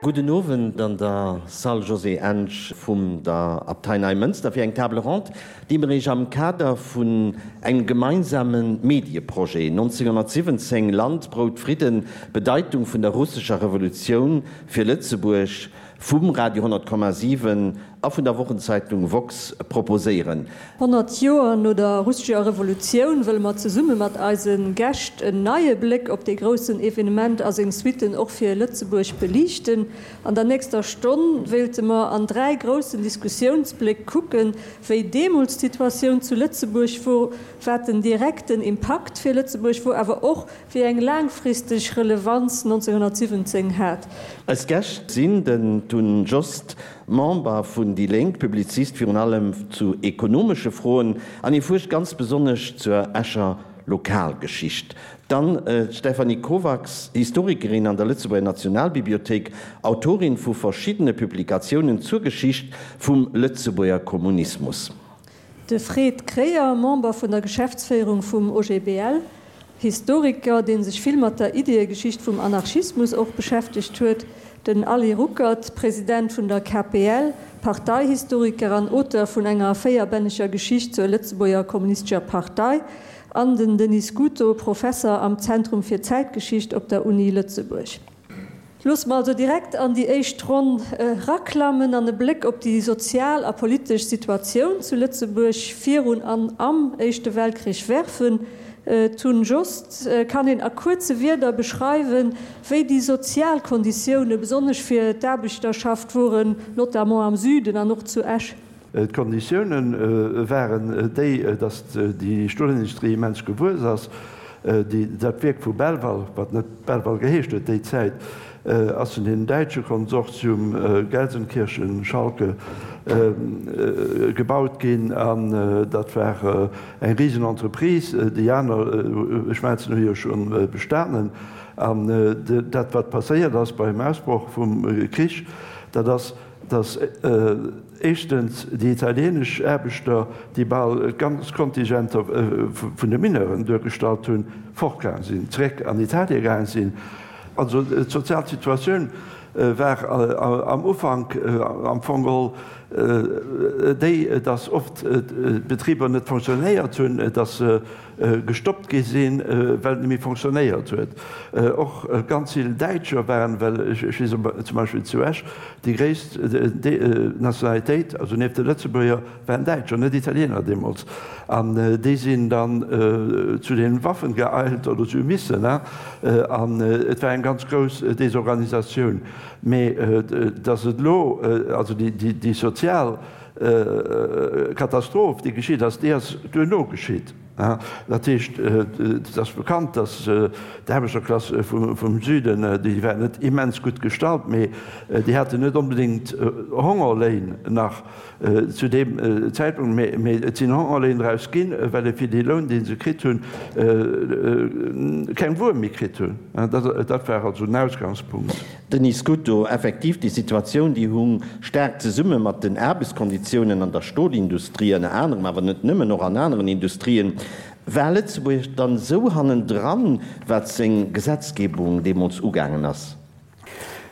Gudden Owend an der Salle José Ensch vum der Abtei Neimënster fir eng Table ronde, déi mir Iech am Kader vun engem gemeinsame Medieprojet 1917, Land, Brout, Fridden, Bedeitung vun der russescher Revolutioun fir Lëtzebuerg vum Radio 100,7 a vun der Wochenzeitung woxx proposéieren. 100 Joer no der russescher Revolutioun wëlle mer zesumme mat eise Gäscht en neie Bléck op dee groussen Evenement a seng Suitten och fir Lëtzebuerg beliichten. An der nächster Stonn wéilte mer an 3 groussen Diskussiounsbléck kucken, wéi deemools d'Situatioun zu Lëtzebuerg wor, wat den direkten Impakt fir Lëtzebuerg wor, awer och wéi eng laangfristeg Relevanz 1917 hat. Eis Gäscht sinn den Tun Jost, Member vun déi Lénk, Publizist virun allem zu ekonomesche Froen an hie fuerscht ganz besonnesch zur Escher Lokalgeschicht. Dann d'Stéphanie Kovacs, Historikerin an der Lëtzebuerger Nationalbibliothéik, Autorin vu verschiddene Publikatiounen zur Geschicht vum Lëtzebuerger Kommunismus. De Fred Kreyer, Member vun der Geschäftsféierung vum OGBL, Historiker, dee sech vill mat der Ideeëgeschicht vum Anarchismus och beschäftegt huet, den Aly Ruckert, President vun der KPL, Parteihistoriker an Auteur vun enger véierbänneger Geschicht zur Lëtzebuerger Kommunistescher Partei, an den Denis Scuto, Professer am Zentrum fir Zäitgeschicht op der Uni Lëtzebuerg. Loosse mer also direkt an déi éischt Ronn eraklammen an e Bléck op déi sozial a politesch Situatioun zu Lëtzebuerg virun an am Éischte Weltkrich werfen. Tun Jost, kann een a kuerze Wierder beschreiwen, wéi déi sozial Konditioune besonnesch fir d'Aarbechterschaft woren, notamment am Süden an och zu Esch? D'Konditioune waren déi, datt déi Stolindustrie immens gewuess ass. Dat Wierk vu Belval, wat net Belval geheescht huet déi Zäit, ass vun deem däitsche Konsortium Gelsenkirchen-Schalke gebaut ginn. An dat war eng risen Entreprise. Déi aner Schmelzen hu jo scho bestanen. An dat, wat passéiert ass beim Ausbroch vum Krich, dat ass, datt éischtens déi italienesch Aarbechter, déi bal d'ganz Kontingenter vun de Mineuren duergestallt hunn, fortgaang sinn, zeréck an Italie gaang sinn. Also d'sozial Situatioun war am Ufank am Fong geholl déi, datt oft d'Betriber net fonctionnéiert hunn, datt se gestoppt gi sinn, well et net méi fonctionnéiert huet. Och ganz vill Däitscher waren, well ech weess zum Beispill zu Esch, déi gréisst Nationalitéit, also nieft de Lëtzebuerger, waren Däitscher, net Italiener deemools. An déi sinn dann zu den Waffen geeilt oder se hu missen. An et war eng ganz grouss Desorganisatioun. Mee datt et elo, also déi sozial Katastroph, déi geschitt ass, déi ass duerno geschitt. Dat heescht, et ass bekannt, datt d'Aarbechterklass vum Süden, déi war net immens gutt gestallt, mee déi haten net onbedéngt Hongerléin nach zu deem Zäitpunkt, mee et sinn Hongerléin draus ginn, well e fir dee Loun, dee se kritt hunn, keng Wuer méi kritt hunn. Dat war also den Ausgangspunkt. Denis Scuto, Effektiv, déi Situatioun, déi hung staark zesumme mat den Aarbechtskonditiounen an der Stolindustrie ënner anerem, awer net nëmmen, och an aneren Industrien. War Lëtzebuerg dann esou hannendran, wat seng Gesetzgebung deemools ugaangen ass?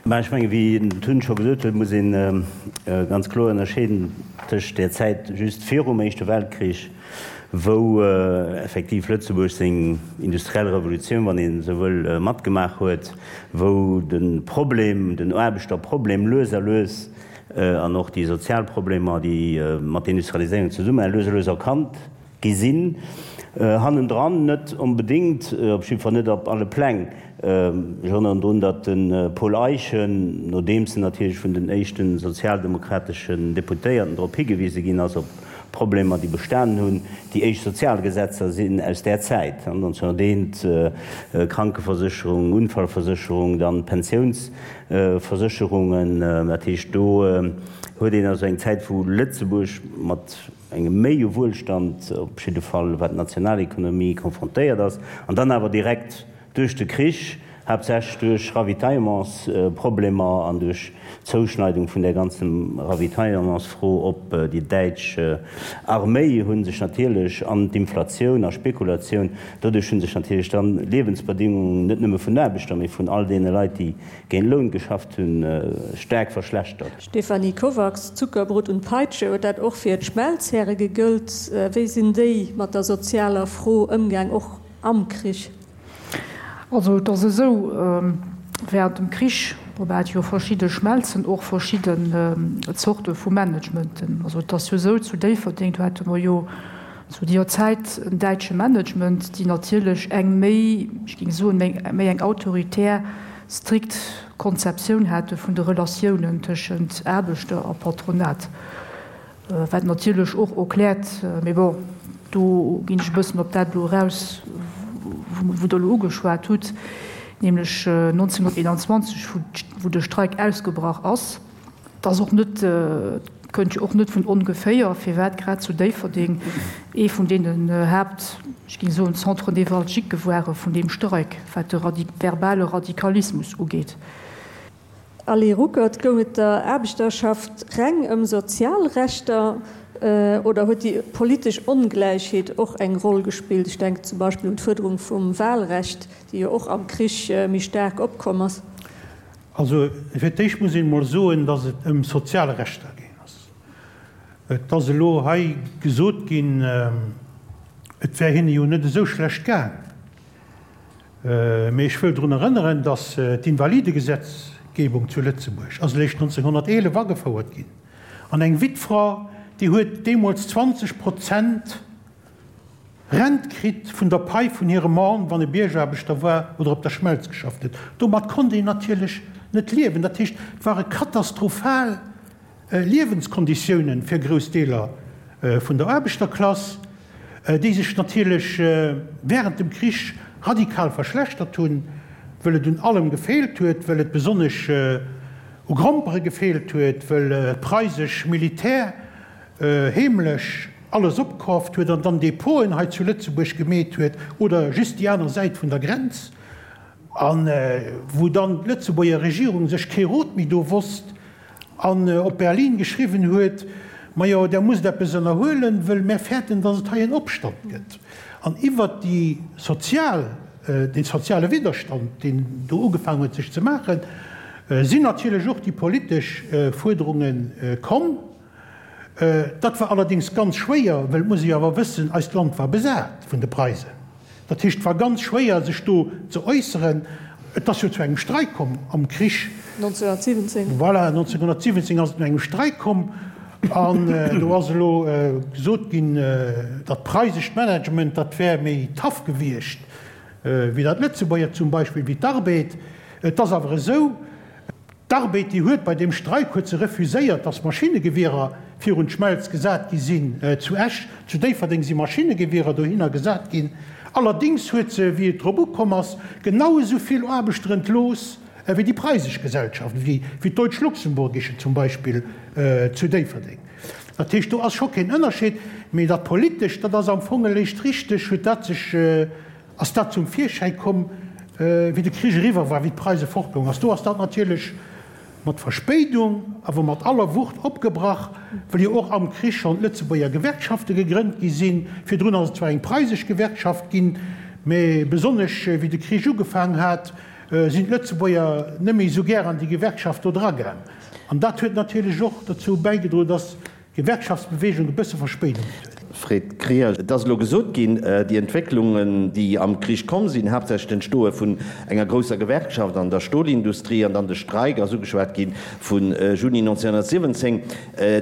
Mä ech mengen, wéi den Tun scho gesot huet, muss ee ganz kloer ënnerscheeden tëscht där Zäit just virum Éischte Weltkrich, wou effektiv Lëtzebuerg seng industriell Revolutioun, wann een esou wëll, matgemaach huet, wou de Problem, den Aarbechterproblem lues a lues an och déi sozial Problemer, déi mat der Industrialiséierung zesummenhängen, lues a lues erkannt gi sinn. Hannendran net onbedéngt, op jiddwer Fall net op alle Pläng. Ech erënneren drun, datt de Paul Eyschen, nodeems en natierlech vun den éischte sozialdemokrateschen Deputéierten drop higewise ginn ass, op Problemer, déi bestanen hunn. Déi éischt Sozialgesetzer sinn aus där Zäit, 1901, Krankeversécherung, Unfallversécherung, dann d'Pensiounsversécherungen. Dat heescht, do huet een also eng Zäit, wou Lëtzebuerg mat engem méi Wuelstand, op jidde Fall wat d'Nationalekonomie, konfrontéiert ass, an dann awer direkt duerch de Krich. Haaptsächlech duerch Ravitaillementsproblemer an duerch d'Zouschneidung vun där ganzen Ravitaillementsfro op déi däitsch Arméi hu sech natierlech, an d'Inflatioun a Spekulatioun, doduerch hu sech natierlech dann d'Liewensbedingungen net nëmme vun den Aarbechter, mee vun all deene Leit, déi géint Loun geschafft hunn, staark verschlechtert. Stéphanie Kovacs, Zuckerbrot und Peitsche, huet dat och fir d'Schmelzhäre gegëllt? Wéi sinn déi mat der sozialer Fro ëmgaang, och am Krich? Also et ass esou, während dem Krich, bon, mer hate jo verschidde Schmelzen, och verschidden Zorte vu Managementen. Also et ass jo esou, zu Déifferdeng, do hate mer jo zu deeër Zäit en däitsche Management, déi natierlech eng méi, ech géing soen, méi eng autoritär, strikt Konzeptioun hate vun de Relatiounen tëschent Aarbechter a Patronat. Wat natierlech och erkläert, mee bon, do ginn ech e bëssen op dat elo eraus, wou Der elo ugeschwat hutt, nämlech 1921, wou de Streik ausgebrach ass. Et ass och net, kënnt jo och net vun ongeféier, firwat grad zu Déifferdeng ee vun deenen Haapt, ech géing soen, Centres névralgiques ware vun deem Streik, wat de verbale Radikalismus ugeet. Allez Ruckert, goung et der Aarbechterschaft reng ëm sozial Rechter oder huet déi politesch Ongläichheet och eng Roll gespillt? Ech denken zum Beispill un d'Fuerderung vum Wahlrecht, déi jo och am Krich méi staark opkomm ass. Also fir d'éischt muss een emol soen, datt et ëm sozial Rechter gaang ass. Et ass elo hei gesot ginn, et wär hinne jo net esou schlecht gaang. Mee ech wëll drun erënneren, datt d'Invalidegesetzgebung zu Lëtzebuerg ass eréischt 1911 agefouert ginn. An eng Wittfra, déi huet deemools 20 Prozent Rent kritt vun der Pai vun hirem Mann, wann e Biergaarbechter war oder op der Schmelz geschafft huet. Domat konnt een natierlech net liewen. Dat heescht, et ware katastrophal Liewenskonditiounen fir grouss Deeler vun der Aarbechterklass, déi sech natierlech während dem Krich radikal verschlechtert hunn, wëll et un allem gefeelt huet, wëll et besonnesch u Grompere gefeelt huet, wëll d'preisesch Militär heemlech alles opkaaft huet an dann Depoten hei zu Lëtzebuerg gemeet huet oder just déi aner Säit vun der Grenz, a wou dann d'Lëtzebuerger Regierung sech kee Rot méi do wosst. An op Berlin geschriwwen huet, Majo, Der musst eppes ënnerhuelen, wëll mär fäerten, datt et hei en Opstand gëtt. An iwwert déi sozial, dee soziale Widderstand, deen do ugefaangen huet sech ze maachen, sinn natierlech och déi politesch Fuerderunge komm. Dat war allerdéngs ganz schwéier, wëll, et muss ee jo awer wëssen, eist Land war besat vun de Preisen. Dat heescht, et war ganz schwéier, sech do ze äusseren. Et ass jo zu engem Streik komm am Krich. 1917. Voilà, 1917 ass et zu engem Streik komm. An do ass elo gesot ginn, dat preisescht Management, dat wär méi tough gewiescht wéi dat Lëtzebuerger zum Beispill, wéi d'Arbed. Et ass awer esou, D'Arbed, déi huet bei deem Streik huet se refuséiert, datt Maschinnegewierer virun d'Schmelz gesat gi sinn zu Esch. Zu Déifferdeng si Maschinnegewierer dohinner gesat ginn. Allerdéngs huet se, wéi et drop ukomm ass, genau esou vill Aarbechter entlooss wéi déi preisesch Gesellschaft, wéi d'Deutsch-Luxemburgische zum Beispill zu Déifferdeng. Dat heescht, do ass scho keen Ënnerscheed. Mee dat Politescht, dat ass am Fong eréischt richteg, huet dat sech, Ass dat zum Virschäi komm, wéi de Krich eriwwer war, wéi d'Preise fortgoung ass? Do ass dat natierlech mat Verspéidung, awer mat aller Wucht opgebrach, wëll jo och am Krich schonn d'Lëtzebuerger Gewerkschafte gegrënnt gi sinn. Virdrun ass et zwar eng preisesch Gewerkschaft ginn, mä besonnesch wéi de Krich ugefaang hat, sinn d'Lëtzebuerger net méi esou gär an déi Gewerkschaft do dragaang. An dat huet natierlech och dozou bäigedroen, dass Gewerkschaftsbewegung e bësse Verspéidung huet. Fred Krier, Et ass elo gesot ginn, déi Entwécklungen, déi am Krich komm sinn, haaptsächlech d'Entstoe vun enger grousser Gewerkschaft an der Stolindustrie an dann de Streik ass ugeschwat gi vu Juni 1917,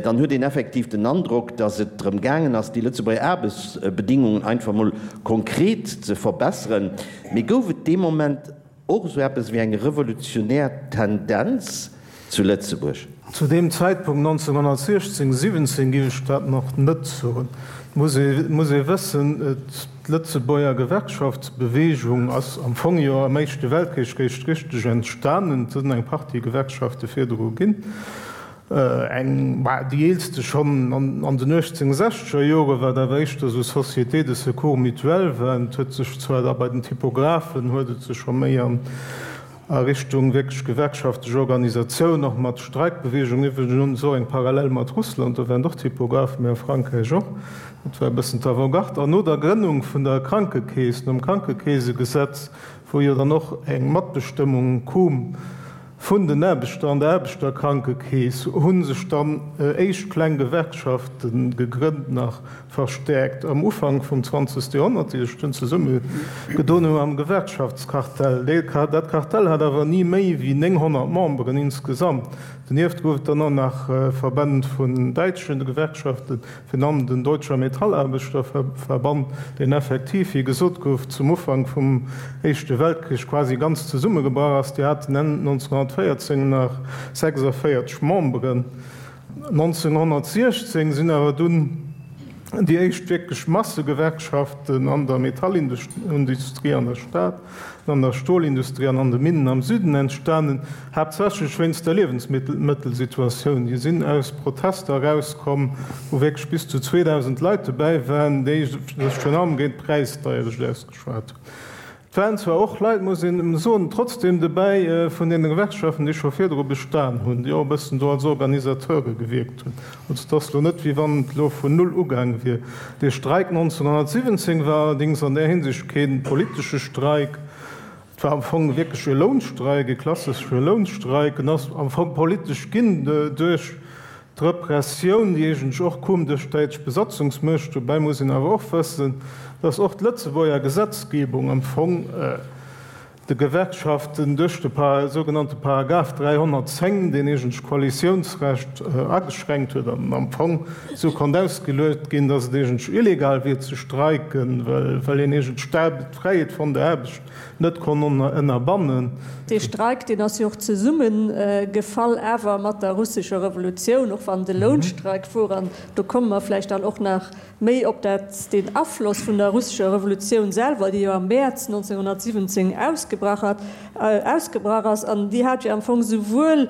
dann huet een effektiv den Androck, datt et drëm gaangen ass, déi Lëtzebuerger Aarbechtsbedingungen einfach mol konkret ze verbesseren. Mee gouf et dee Moment Och esou eppes wéi eng revolutionär Tendenz zu Lëtzebuerg? Zu deem Zäitpunkt 1916, 17 géif ech dat nach net soen. Et muss ee, muss ee wëssen, d'Lëtzebuerger Gewerkschaftsbewegung ass am Fong jo am Éischte Weltkrich réischt richteg entstanen. Et sinn eng Partie Gewerkschafte virdru ginn. Eng, bah, déi eelste schonn an den 1860er Joren, wat awer éischter esou Sociétés de secours mutuel waren. Et huet sech zwar da bei den Typographen huet et sech scho méi an. A Richtung wierklech gewerkschaftlech Organisatioun, och mat Streikbeweegung. Iwwregens och eng Parallel mat Russland, do waren och Typographen, mee a Frankräich och. Dat war e bëssen d'Avant-garde. An no der Grënnung vun der Krankekeess, nom Krankekeesegesetz, wou jo dann och eng Matbestëmmung koom vun den Aarbechter an der Aarbechterkrankekeess, hu sech dann éischt kleng Gewerkschafte gegrënnt, nach verstäerkt am Ufank vum zwanzegste Joerhonnert, déi sech dunn zesumme gedoen hu am Gewerkschaftskartell. Dat Kartell hat awer ni méi wéi 900 Memberen insgesamt. Donieft gouf et dann och nach Verbänn vun däitsche Gewerkschaften, virun allem den Deutscher Metallarbeiterverband, deen effektiv, wéi gesot gouf, zum Ufank vum Éischte Weltkrich quasi ganz zesummegebrach ass. Déi haten Enn 1914 nach 46 Memberen. 1916 sinn awer dunn déi éischt wierklech Massegewerkschaften an der Metallindustrie an der Stad, an der Stolindustrie an an de Minnen am Süden entstanen, haaptsächlech wéinst der Liewensmëttelsituatioun. Déi sinn aus Protester erauskomm, wou wierklech bis zu 2.000 Leit dobäi waren, déi sech virun allem géint d'Präisdeierecht ausgeschwat hunn. Et waren zwar och Leit, muss een soen, trotzdem dobäi vun deene Gewerkschaften, déi scho virdru bestan hunn, déi och e bëssen do als Organisateure gewierkt hunn. Also et ass elo net, wéi wann et elo vun null ugaang wier. Dee Streik 1917 war allerdéngs an där Hinsicht kee politesche Streik. Et war am Fong wierklech e Lounstreik, e klassesche Lounstreik. En ass am Fong politesch ginn duerch D'Repressioun, déi eegentlech och koom duerch d'däitsch Besatzungsmuecht, dobäi muss een awer och wëssen, datt och d'Lëtzebuerger Gesetzgebung am Fong de Gewerkschaften duerch de sougenannte Paragraph 310, deen eegentlech d'Koalitiounsrecht ageschränkt huet an am Fong esou konnt ausgeluecht ginn, datt et eegentlech illegal wier ze streiken, well een eegentlech d'Fräiheet vun der Aarbecht net konnt ënnerbannen. Dee Streik, deen ass jo och zesummegefall awer mat der russescher Revolutioun, och wann et e Lounstreik wor. An do komme mer vläicht dann och nach méi op dat, deen Afloss vun der russescher Revolutioun selwer, déi jo am Mäerz 1917 ausgebrach hat, ausgebrach ass. An déi hat jo am Fong souwuel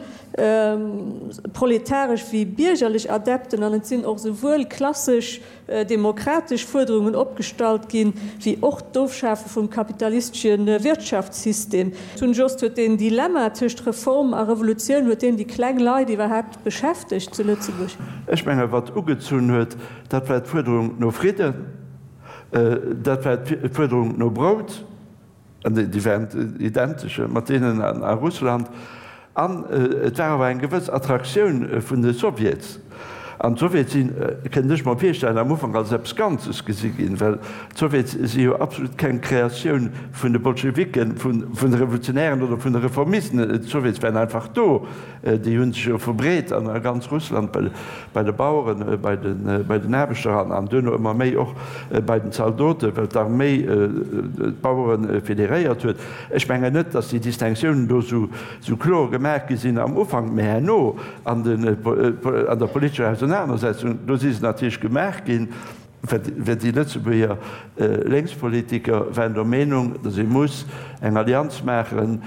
proletaresch wéi biergerlech Adepten an et sinn och souwuel klassesch demokratesch Fuerderungen opgestallt ginn, wéi och d'Ofschafe vum kapitalistesche Wirtschaftssystem. Tun Jost, Huet deen Dilemma tëscht Reform a Revolutioun, huet deen déi kleng Leit iwwerhaapt beschäftegt zu Lëtzebuerg? Ech menge wat ugezunn huet, dat war d'Fuerderung no Fridden, dat war d'Fuerderung no Brout, An déi waren identesch mat deenen a Russland. An et war awer eng gewëss Attraktioun vun de Sowjets. An d'Sowjets sinn, kënnt ech mer virstellen, am Ufank als eppes Ganzes gesi ginn, well d'Sowjets si jo absolut keng Kreatioun vun de Bolschewiken, vun de Revolutionären oder vun de Reformisten. D'Sowjets waren einfach do. Déi hu sech jo verbreet an a ganz Russland, bei de Baueren, bei den Aarbechter an duerno ëmmer méi och bei den Zaldoten, well d'Arméi d'Bauere federéiert huet. Ech mengen net, datt déi Distinctiounen do esou kloer gemaach gi sinn am Ufank, mä herno an der politescher Ausenanersetzung, do si se natierlech gemaach ginn. Well déi Lëtzebuerger Lénkspolitiker waren der Meenung, datt ee muss eng Allianz maachen,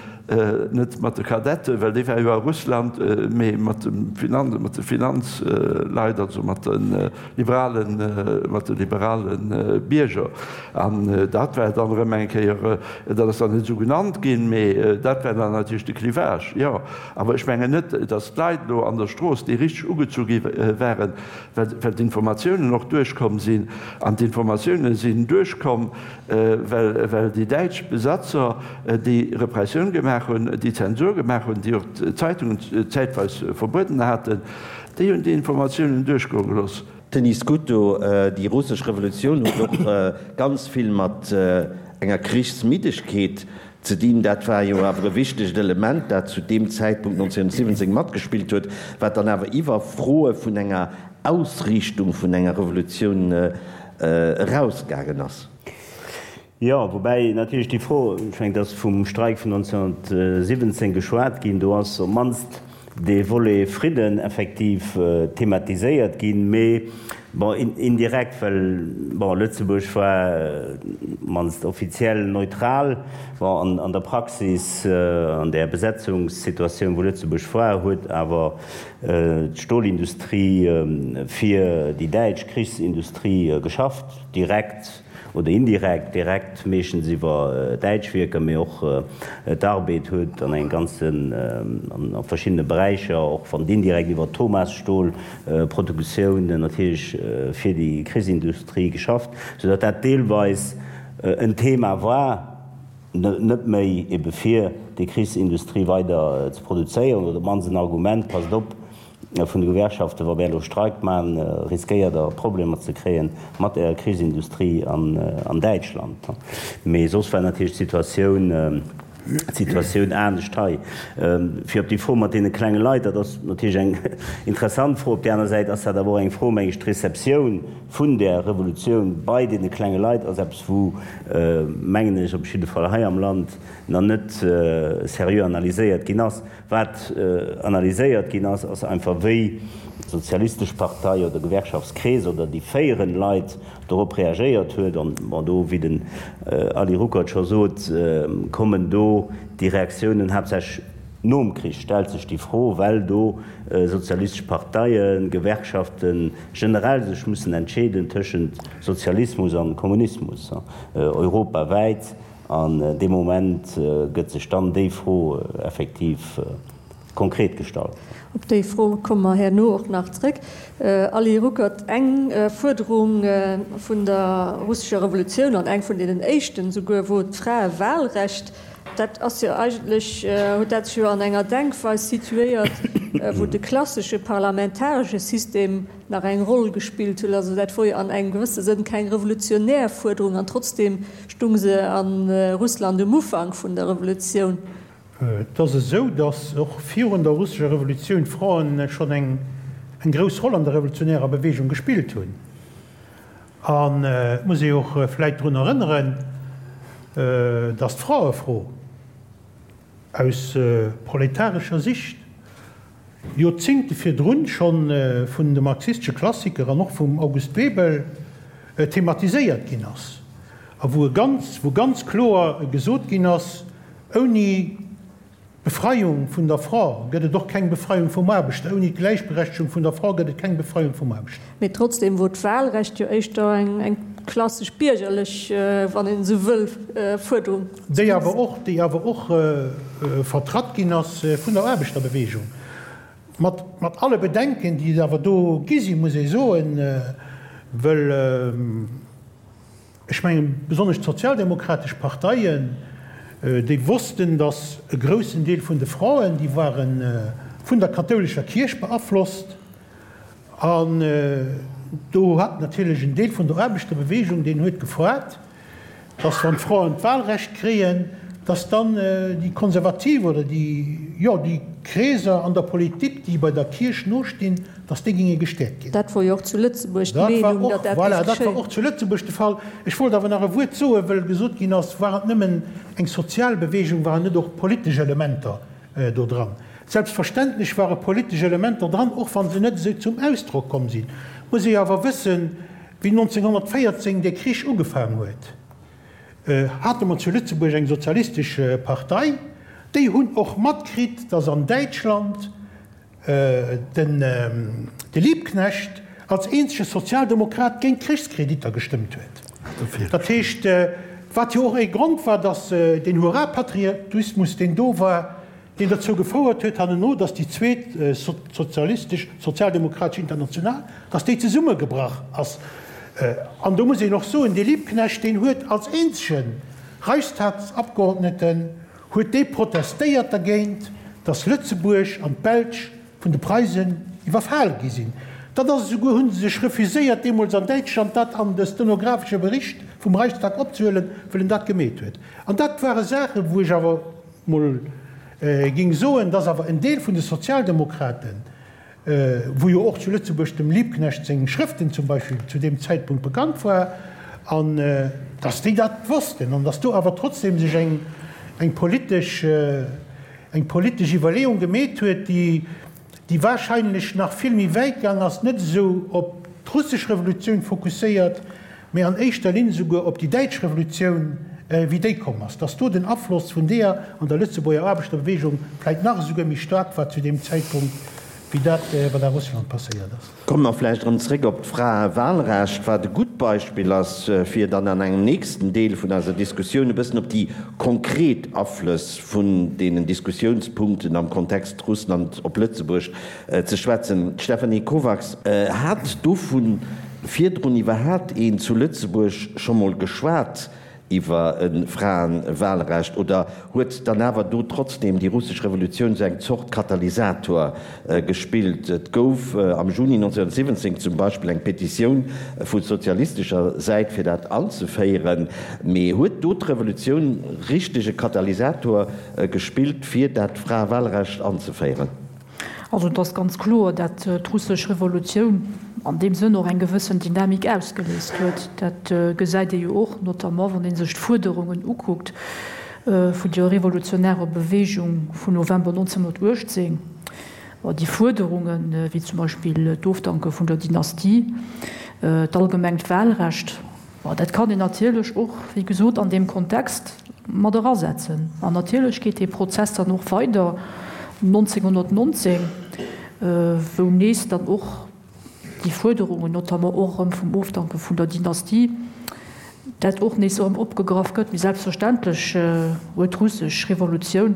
net mat de Kadetten, well déi ware jo a Russland, mee mat dem Finanz, mat de Finanzleit, also mat de liberalen, mat de liberale Bierger. An dat war dann erëm eng Kéier, dat ass dann net esou genannt ginn, mee dat war dann natierlech de Clivage, jo. Awer ech mengen net, datt d'Leit elo an der Strooss, déi richteg ugezu gi waren, well d'Informatiounen och duerchkomm sinn, an d'Informatiounen sinn duerchkomm, well déi däitsch Besatzer déi Repressioun gemaach hunn, déi Zensur gemaach hunn, déi och d'Zeitungen zäitweis verbueden haten, déi hunn déi Informatiounen duerchgoe gelooss. Denis Scuto, Déi russesch Revolutioun huet och ganz vill mat enger Krichsmiddegkeet Ze dinn. Dat war jo awer e wichtegt Element, dat zu deem Zäitpunkt 1917 matgespillt huet, wat dann awer iwwer Froe vun enger Ausriichtung vun enger Revolutioun erausgaangen ass. Jo, woubäi natierlech déi Fro, ech mengen, et ass vum Streik vun 1917 geschwat ginn, do ass op d'mannst dee Volet Fridden effektiv thematiséiert ginn, mee bon, indirekt, well bon, Lëtzebuerg war mannst offiziell neutral. Bon, an an der Praxis, an där Besetzungssituatioun, wou Lëtzebuerg war, huet awer d'Stolindustrie fir déi däitsch Krichsindustrie geschafft, direkt. Oder indirekt, direkt meeschtens iwwer däitsch Wierker, mee och d'Arbed huet an engem ganzen, a verschiddene Beräicher, och wann et indirekt iwwer d'Thomas-Stol-Produktioun natierlech fir déi Krichsindustrie geschafft, soudatt dat deelweis en Thema war, net méi ebe fir déi Krichsindustrie weider ze produzéieren, oder op d'mannst en Argument, Passt op, vun de Gewerkschaften, wa mär elo Streik maachen, riskéiert Der Problemer ze kréie mat Ärer Krichsindustrie an Däitschland. Mee soss war natierlech d'Situatioun, d'Situatioun anescht hei. Fir op déi Fro mat deene klenge Leit, dat ass natierlech eng interessant Fro. Op där aner Säit ass dat awer och eng Fro, meng ech, d'Receptioun vun där Revolutioun bei deene klenge Leit ass eppes, wou, mengen ech, op jidde Fall hei am Land nach net seriö analyséiert ginn ass. Wat analyséiert ginn ass, ass einfach wéi d'Sozialistesch Partei oder Gewerkschaftskrees oder déi féierend Leit dorop reagéiert huet. An bon, do, wéi den Ali Ruckert scho sot, kommen do déi Reaktiounen haaptsächlech nom Krich, stellt sech déi Fro, well do sozialistesch Parteien, Gewerkschaften generell sech mussen entscheeden tëschent Sozialismus an Kommunismus europawäit. An dee Moment gëtt sech dann déi Fro effektiv konkret gestallt. Op déi Fro komme mer herno och nach zréck. Ali Ruckert, eng Fuerderung vun der russescher Revolutioun, an eng vun deenen éischten esouguer, wor d'Fraewahlrecht. Dat ass jo eigentlech, huet dat sech jo an enger Denkweis situéiert, wou de klassesche parlamentaresche System nach eng Roll gespillt huet. Also dat wor jo an engem gewësse Sënn keng revolutionär Fuerderung an trotzdem stung se a Russland um Ufank vun der Revolutioun. Et ass esou, datt och virun der russescher Revolutioun d'Fraen schonn eng grouss Roll an der revolutionärer Beweegung gespillt hunn. An et muss ee och vläit drun erënneren, datt d'Fraefro aus proletarescher Sicht Joerzingte virdrun schonn vun de marxistesche Klassiker an och vum August Bebel thematiséiert ginn ass a wou e ganz, wou ganz kloer gesot ginn ass, ouni d'Befreiung vun der Fra gëtt et och keng Befreiung vum Aarbechter, ouni d'Gläichberechtegung vun der Fra gëtt et keng Befreiung vum Aarbechter. Mee trotzdem wor d'Wahlrecht jo éischter eng klassesch biergerlech, wann een esou wëll, Fuerderung. Déi awer och, déi awer och vertratt ginn ass vun der Aarbechterbewegung, mat, mat alle Bedenken, déi et awer do gi sinn, muss ee soen, wëll ech mengen, besonnesch d'sozialdemokratesch Parteien, déi wossten, datt e groussen Deel vun de Fraen, déi ware vun der kathoulescher Kierch beaflosst, An do hat natierlech en Deel vun der Aarbechterbewegung, deen huet gefoart, dass wann d'Fraen d'Wahlrecht kréien, dass dann déi Konservativ oder déi, jo, déi Kreeser an der Politik, déi bei der Kierch nostinn, dass déi géinge gestäerkt ginn. Dat wor jo och zu Lëtzebuerg d'Meenung, datt dat géif geschéien. Voilà, dat war och zu Lëtzebuerg de Fall. Ech wollt awer nach e Wuert soen, wëll gesot ginn ass, war et nëmmen eng sozial Bewegung, waren net och politesch Elementer do dran. Selbstverständlech ware politesch Elementer dran, och wa se net esou zum Ausdrock komm sinn. Muss ee awer wëssen, wéi 1914 dee Krich ugefaang huet, hate mer zu Lëtzebuerg eng sozialistesch Partei, déi hunn och matkritt, datt an Däitschland den de Liebknecht als eenzege Sozialdemokrat géint d'Krichskreditter gestëmmt huet. Dat heescht, wat jo och ee Grond war, datt deen Hurra-Patriotismus, deen do war, deen derzou gefouert huet hanneno, datt déi zweet sozialistesch, sozialdemokratesch International, datt déi zesummegebrach ass. An do muss een och soen, dee Liebknecht, deen huet als eenzege Reichstagsabgeordneten huet dee protestéiert dergéint, datt Lëtzebuerg an d'Belsch vun de Preisen iwwerfal gi sinn. Dat ass esouguer, hu se sech refuséiert deemools an Däitschland dat an de stenographesche Bericht vum Reichstag opzehuelen, wëll en dat gemeet huet. An dat ware Saachen, wou ech awer mol géing soen, datt awer en Deel vun de Sozialdemokraten, wou jo och zu Lëtzebuerg dem Liebknecht seng Schrëften zum Beispill zu deem Zäitpunkt bekannt war, an datt déi dat wossten an datt do awer trotzdem sech eng, eng politesch, eng politesch Iwwerleeung gemeet huet, déi, déi wahrscheinlech nach vill méi wäit gaang ass, net esou op d'russesch Revolutioun fokusséiert, mee an éischter Linn esouguer op déi däitsch Revolutioun, wéi déi komm ass, datt do den Afloss vun deeër an der Lëtzebuerger Aarbechterbewegung vläit nach esouguer méi staark war zu deem Zäitpunkt, wéi dat, wat a Russland passéiert ass. Komme mer vläicht erëm zréck op d'Fraewahlrecht, wat e gutt. gutt Beispill ass, fir dann an engem nächsten Deel vun eiser Diskussioun e bëssen op déi konkret Aflëss vun deenen Diskussiounspunkten am Kontext Russland op Lëtzebuerg ze schwätzen. D'Stéphanie Kovacs, Hat dovun virdrun iwwerhaapt een zu Lëtzebuerg scho mol geschwat iwwer e Fraenwahlrecht oder huet dann awer do trotzdem déi russesch Revolutioun sou eng Zort Katalysator gespillt? Et gouf am Juni 1917 zum Beispill eng Petitioun vu sozialistescher Säit fir dat anzeféieren, mee huet do d'Revolutioun richteg e Katalysator gespillt fir dat Fraewahlrecht anzeféieren? Also et ass ganz kloer, dat d'russesch Revolutioun an deem Sënn och eng gewëssen Dynamik ausgeléist huet. Dat gesäit ee jo och notamment, wann ee sech d'Fuerderungen ukuckt vun der revolutionärer Bewegung vun November 1918. Déi Fuerderungen, wéi zum Beispill d'Ofdanke vun der Dynastie, d'allgemengt Wahlrecht, Bon, dat kann een natierlech och, wéi gesot, an deem Kontext mat erasetzen. An natierlech geet dee Prozess dann och weider 1919, wou nees dann och déi Fuerderungen, notamment och erëm vum Ofdanke vun der Dynastie, dat och nees erëm opgegraff gëtt. Mee selbstverständlech huet d'russesch Revolutioun,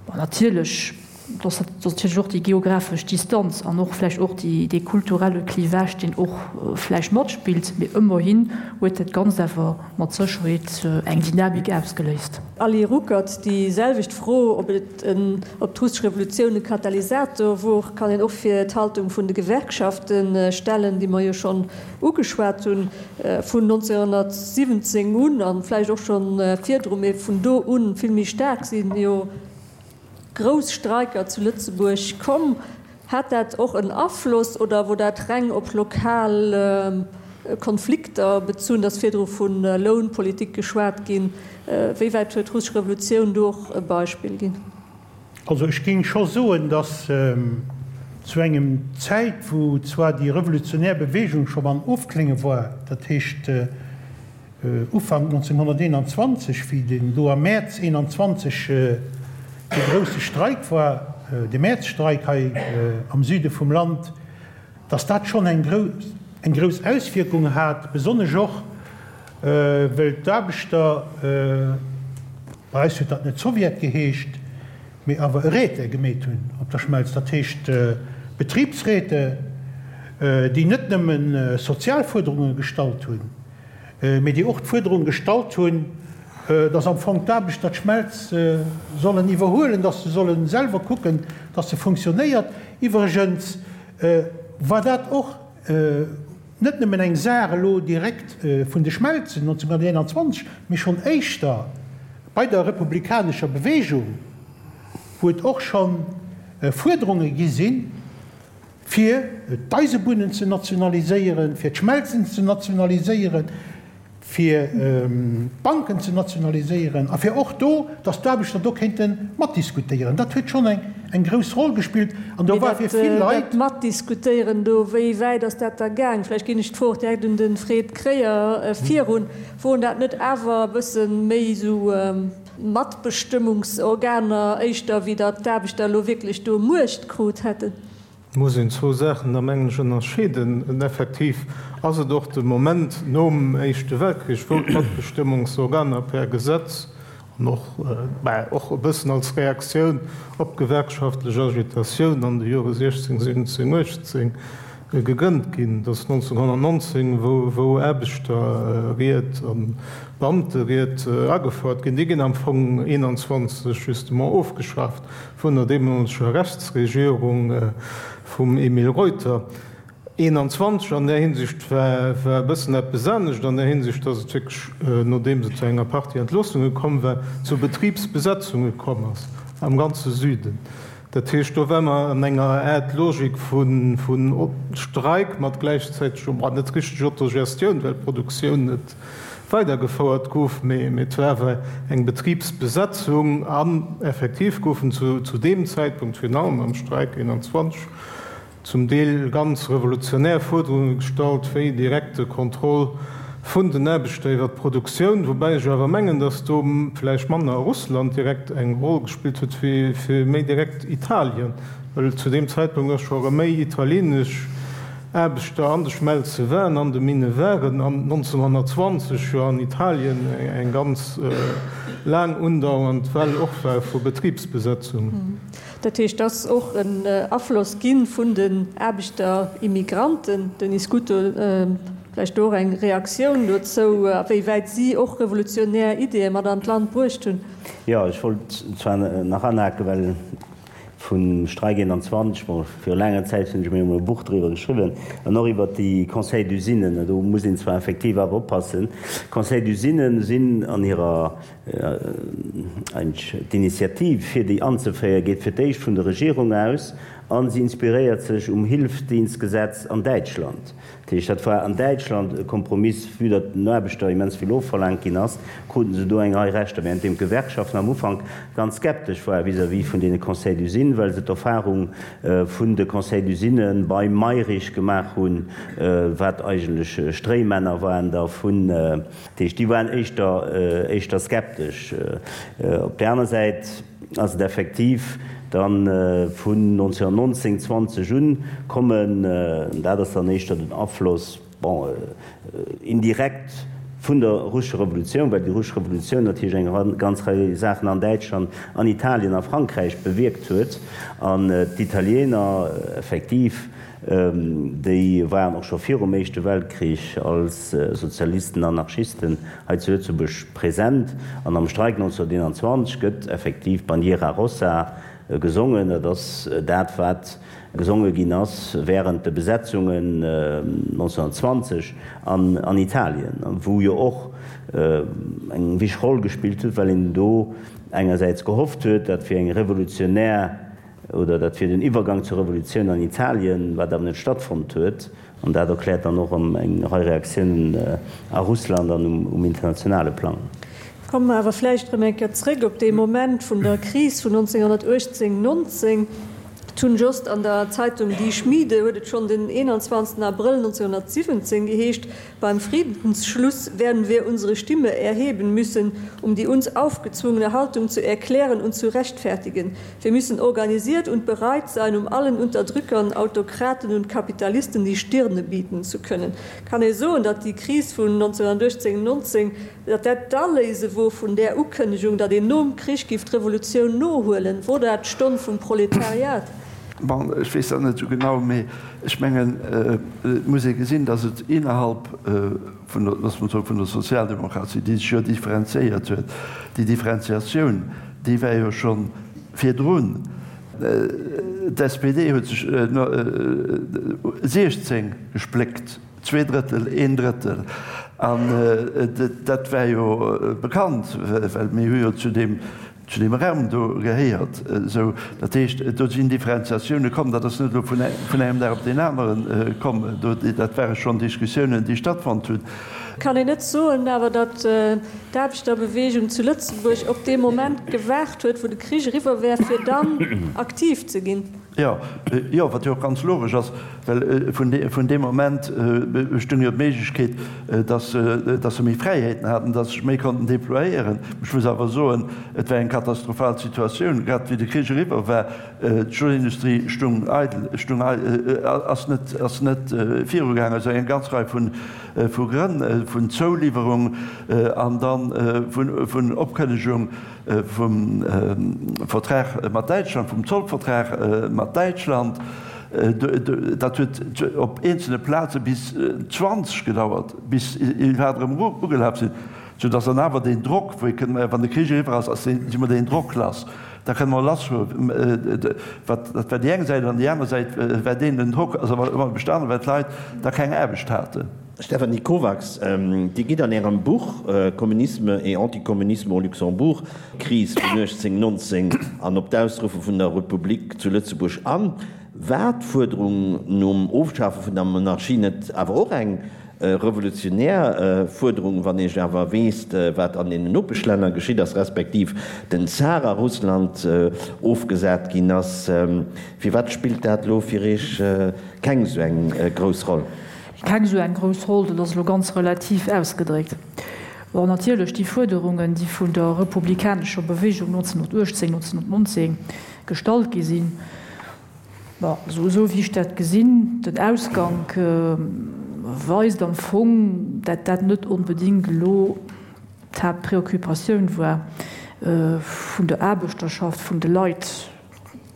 bon, natierlech, Dass natierlech och déi geographesch Distanz an och vläicht och dee kulturelle Clivage, deen och vläicht matspillt, mee ëmmerhin huet dat Ganzt awer mat Sécherheet eng Dynamik ausgeléist. Ali Ruckert, Déi selwecht Fro, ob et en, ob d'russesch Revolutioun e Katalysator wor, kann een och fir d'Haltung vun de Gewerkschafte stellen, déi mer jo schonn ugeschwat hunn, vun 1917 un a vläicht och scho virdru, mee vun do u vill méi staark sinn jo grouss Streiker zu Lëtzebuerg komm. Hat dat och en Afloss oder wor dat reng op lokal Konflikter bezunn? Et ass virdru vu Lounpolitik geschwat ginn. Wéi wäit huet d'russesch Revolutioun do och e Beispill ginn? Also ech géing scho soen, datt zu engem Zäit, wou zwar déi revolutionär Bewegung scho am Ofklénge war, dat heescht Ufank 1921, wéi den do am Mäerz 21 dee grousse Streik war, de Mäerzstreik hei am Süde vum Land, datt dat schonn eng eng grouss Auswierkung hat, besonnesch och wëll d'Aarbechter, bei eis huet dat net Sowjet geheescht, mee awer e Räte gemeet hunn op der Schmelz, dat heescht Betribsräte, déi net nëmme sozial Fuerderunge gestallt hunn, mee déi och d'Fuerderung gestallt hunn, dass am Fong d'Aarbechter d'Schmelz sollen iwwerhuelen, dass se solle selwer kucken, dass se funktionéiert. Iwwregens war dat och net nëmmen eng Saach elo direkt vun de Schmelzen 1921, mee schonn éischter bei der republikanescher Bewegung, wou et och scho Fuerderunge gi sinn, fir d'Eisebunnen ze nationaliséieren, fir d'Schmelzen ze nationaliséieren, fir d'Banken ze nationaliséieren a fir och do, datt d'Aarbechter do kéinte matdiskutéieren. Dat huet schonn eng grouss Roll gespillt an do war fir vill Leit. Dat Matdiskutéieren do, wéi wäit ass dat da gaang? Vläicht ginn ech d'Fro och direkt un de Fred Kreyer virun. Woren dat net awer e bësse méi esou Matbestëmmungsorganer éischter, wéi datt d'Aarbechter elo wierklech do Muecht krut hätten? Et muss een zwou Saachen da mengen ech ënnerscheeden. Effektiv ass et och de Moment nom Éischte Weltkrich, wou d'Matbestëmmungsorganer per Gesetz an och, mä och e bëssen als Reaktioun op d'gewerkschaftlech Agitatioun an de Jore 16, 17, 18 gegrënnt ginn. Et ass 1919, wou Aarbechterried a Beamteried agefouert ginn. Déi ginn am Fong 21 justement ofgeschaaft vun der deemoleger Rechtsregierung vum Emile Reuter. 21 an där Hinsicht war e bëssen eppes anescht, an där Hinsicht, datt et wierklech, nodeems et zu enger Partie Entloossunge komm war, zu Betribsbesetzunge komm ass am ganze Süden. Dat heescht, do ware mer an enger Aart Logik vu Streik mat gläichzäitegem, bon, net richteg Autogestioun, well d'Produktioun net weidergefouert gouf, mee et war awer eng Betribsbesetzung an effektiv goufen zu deem Zäitpunkt, virun allem am Streik 21, zum Deel ganz revolutionär Fuerderunge gestallt, wéi direkte Contrôle vun den Aarbechter iwwer d'Produktioun, woubäi ech awer mengen, datt do vläicht manner Russland direkt eng Roll gespillt huet, wéi méi direkt Italien, well zu deem Zäitpunkt ass scho erëm méi italienesch. Aarbechter an de Schmelze waren, an de Minne waren, an 1920 jo an Italien eng ganz laang undauernd Well och war vu Betribsbesetzungen. Dat heescht, et ass och en Afloss gi vun den Aarbechterimigranten. Denis Scuto, vläicht do och eng Reaktioun dozou, a wéi wäit si och revolutionär Ideeë mat an d'Land bruecht hunn? Jo, ech wollt zwar nach anhaken, well vum Streik 21, bon, viru laanger Zäit hunn ech mir emol e Buch driwwer geschriwwen, an och iwwert déi Conseils d'usines. Do muss een zwar effektiv awer oppassen, Conseils d'usines sinn an hirer, eigentlech d'Initiativ fir déi anzeféieren, geet fir d'éischt vun der Regierung aus a si inspiréiert sech um Hilfsdienstgesetz an Däitschland. Dat heescht, dat war an Däitschland e Kompromiss, vue datt den Aarbechter immens vill ofverlaangt ginn ass, kruten se do eng Rei Rechter, währenddeem d'Gewerkschaften am Ufank ganz skeptesch ware vis-à-vis vun deene Conseils d'usines, well se d'Erfahrung vun de Conseils d'usines beim Mayrisch gemaach hunn, wat eigentlech Stréimänner waren da vun. Dat heescht, déi waren éischter, éischter skeptesch. Op där aner Säit ass et effektiv da vun 1919, 20 un kommen, dat ass dann éischter den Afloss, bon, indirekt vun der russescher Revolutioun, well déi russesch Revolutioun natierlech eng ganz Rei Saachen an Däitschland, an Italien a Frankräich bewierkt huet an d'Italiener effektiv, Déi waren och scho virum Éischte Weltkrich als Sozialisten, Anarchisten hei zu Lëtzebuerg present. An am Streik 1921 gëtt effektiv Bandiera Rossa gesongen. Dat ass dat, wat gesonge ginn ass wärend de Besetzungen 1920 an Italien, wou jo och eng wichteg Roll gespillt huet, well een do engersäits gehofft huet, dat wier eng revolutionär Oder dat wier den Iwwergang zur Revolutioun an Italien, wat awer net stattfonnt huet. An dat erkläert dann och eng Rei Reaktiounen a Russland an um internationale Plang. Komme mer awer vläicht erëm eng Kéier zréck op dee Moment vun der Kris vun 1918, 19. D'Hunn Jost an der Zeitung Die Schmiede huet et schonn den 21 Abrëll 1917 geheescht, Beim Friedensschluss werden wir unsere Stimme erheben müssen, um die uns aufgezwungene Haltung zu erklären und zu rechtfertigen. Wir müssen organisiert und bereit sein, um allen Unterdrückern, Autokraten und Kapitalisten die Stirne bieten zu können. Kann ee soen, datt déi Kris vun 1918, 19, datt dat d'Aléise wor vun där Ukënnegung, datt een nom Krich giff d'Revolutioun nohuelen? Wor dat d'Stonn vum Proletariat? Bon, ech weess dat net esou genau, mee ech mengen, et muss ee gesinn, datt et innerhalb vun der, loosse mer soen, vun der Sozialdemokratie, déi sech jo differenziéiert huet, déi Differenziatioun, déi war jo scho virdrun. D'SPD huet sech 16 gespléckt, Zweedrëttel, een Drëttel. An dat war jo bekannt, well mir hu jo zu deem zu deem Raum do gehéiert. Esou, dat heescht, do sinn Differenziatioune komm. Dat ass net elo vun engem Dag op deen anere komm. Do, dat ware schonn Diskussiounen, déi stattfonnt hunn. Kann een net soen awer, datt d'Aarbechterbewegung zu Lëtzebuerg op dee Moment gewaart huet, wou de Krich eriwwer wär, fir dann aktiv ze ginn? Jo, jo, wat jo och ganz logesch ass, well vun deem Moment bestung jo d'Méiglechkeet, dass dass se méi Fräiheeten haten, dass se sech méi konnten déployéieren. Ech muss awer soen, et war eng katastrophal Situatioun, grad wéi de Krich eriwwer war. D'Stolindustrie stung eidel, stung ass net ass net virugaangen aus enger ganz Rei vun vu Grënn, vun Zouliwwerung an dann vun vun Opkënnegung. vum Vertrag mat Däitschland, vum Zollvertrag mat Däitschland, dat huet op eenzelne Plaze bis 20 gedauert, bis iwwerhaapt erëm ugelaf sinn, soudass dann awer deen Drock, wou ee kënnt, wann de Krich eriwwer ass, ass deen, si mer deen Drock lass, da kënne mer lassfueren. Wat, dat war déi eng Säit, an déi aner Säit war deen, den Drock ass awer ëmmer bestanen, well d'Leit da keng Aarbecht haten. Stéphanie Kovacs, Dir gitt an Ärem Buch Communisme et anticommunisme au Luxembourg, d'Kris vun 1819 an op d'Ausruffe vun der Republik zu Lëtzebuerg an. War d'Fuerderung nom Ofschafe vun der Monarchie net awer och eng revolutionär Fuerderung, wann ee awer weess, wat an deenen Nopeschlänner geschitt ass, respektiv den Zar a Russland ofgesat ginn ass? Firwat spillt dat elo fir Iech keng esou eng grouss Roll? Keng esou eng grouss Roll, dat ass elo ganz relativ ausgedréckt. Bon, natierlech déi Fuerderungen, déi vun der republikanescher Bewegung 1918, 1919 gestallt gi sinn. Bon, also esou wéi ech dat gesinn, den Ausgank weist am Fong, dat dat net onbedéngt elo d'Haaptpréoccupatioun war vun der Aarbechterschaft, vun de Leit,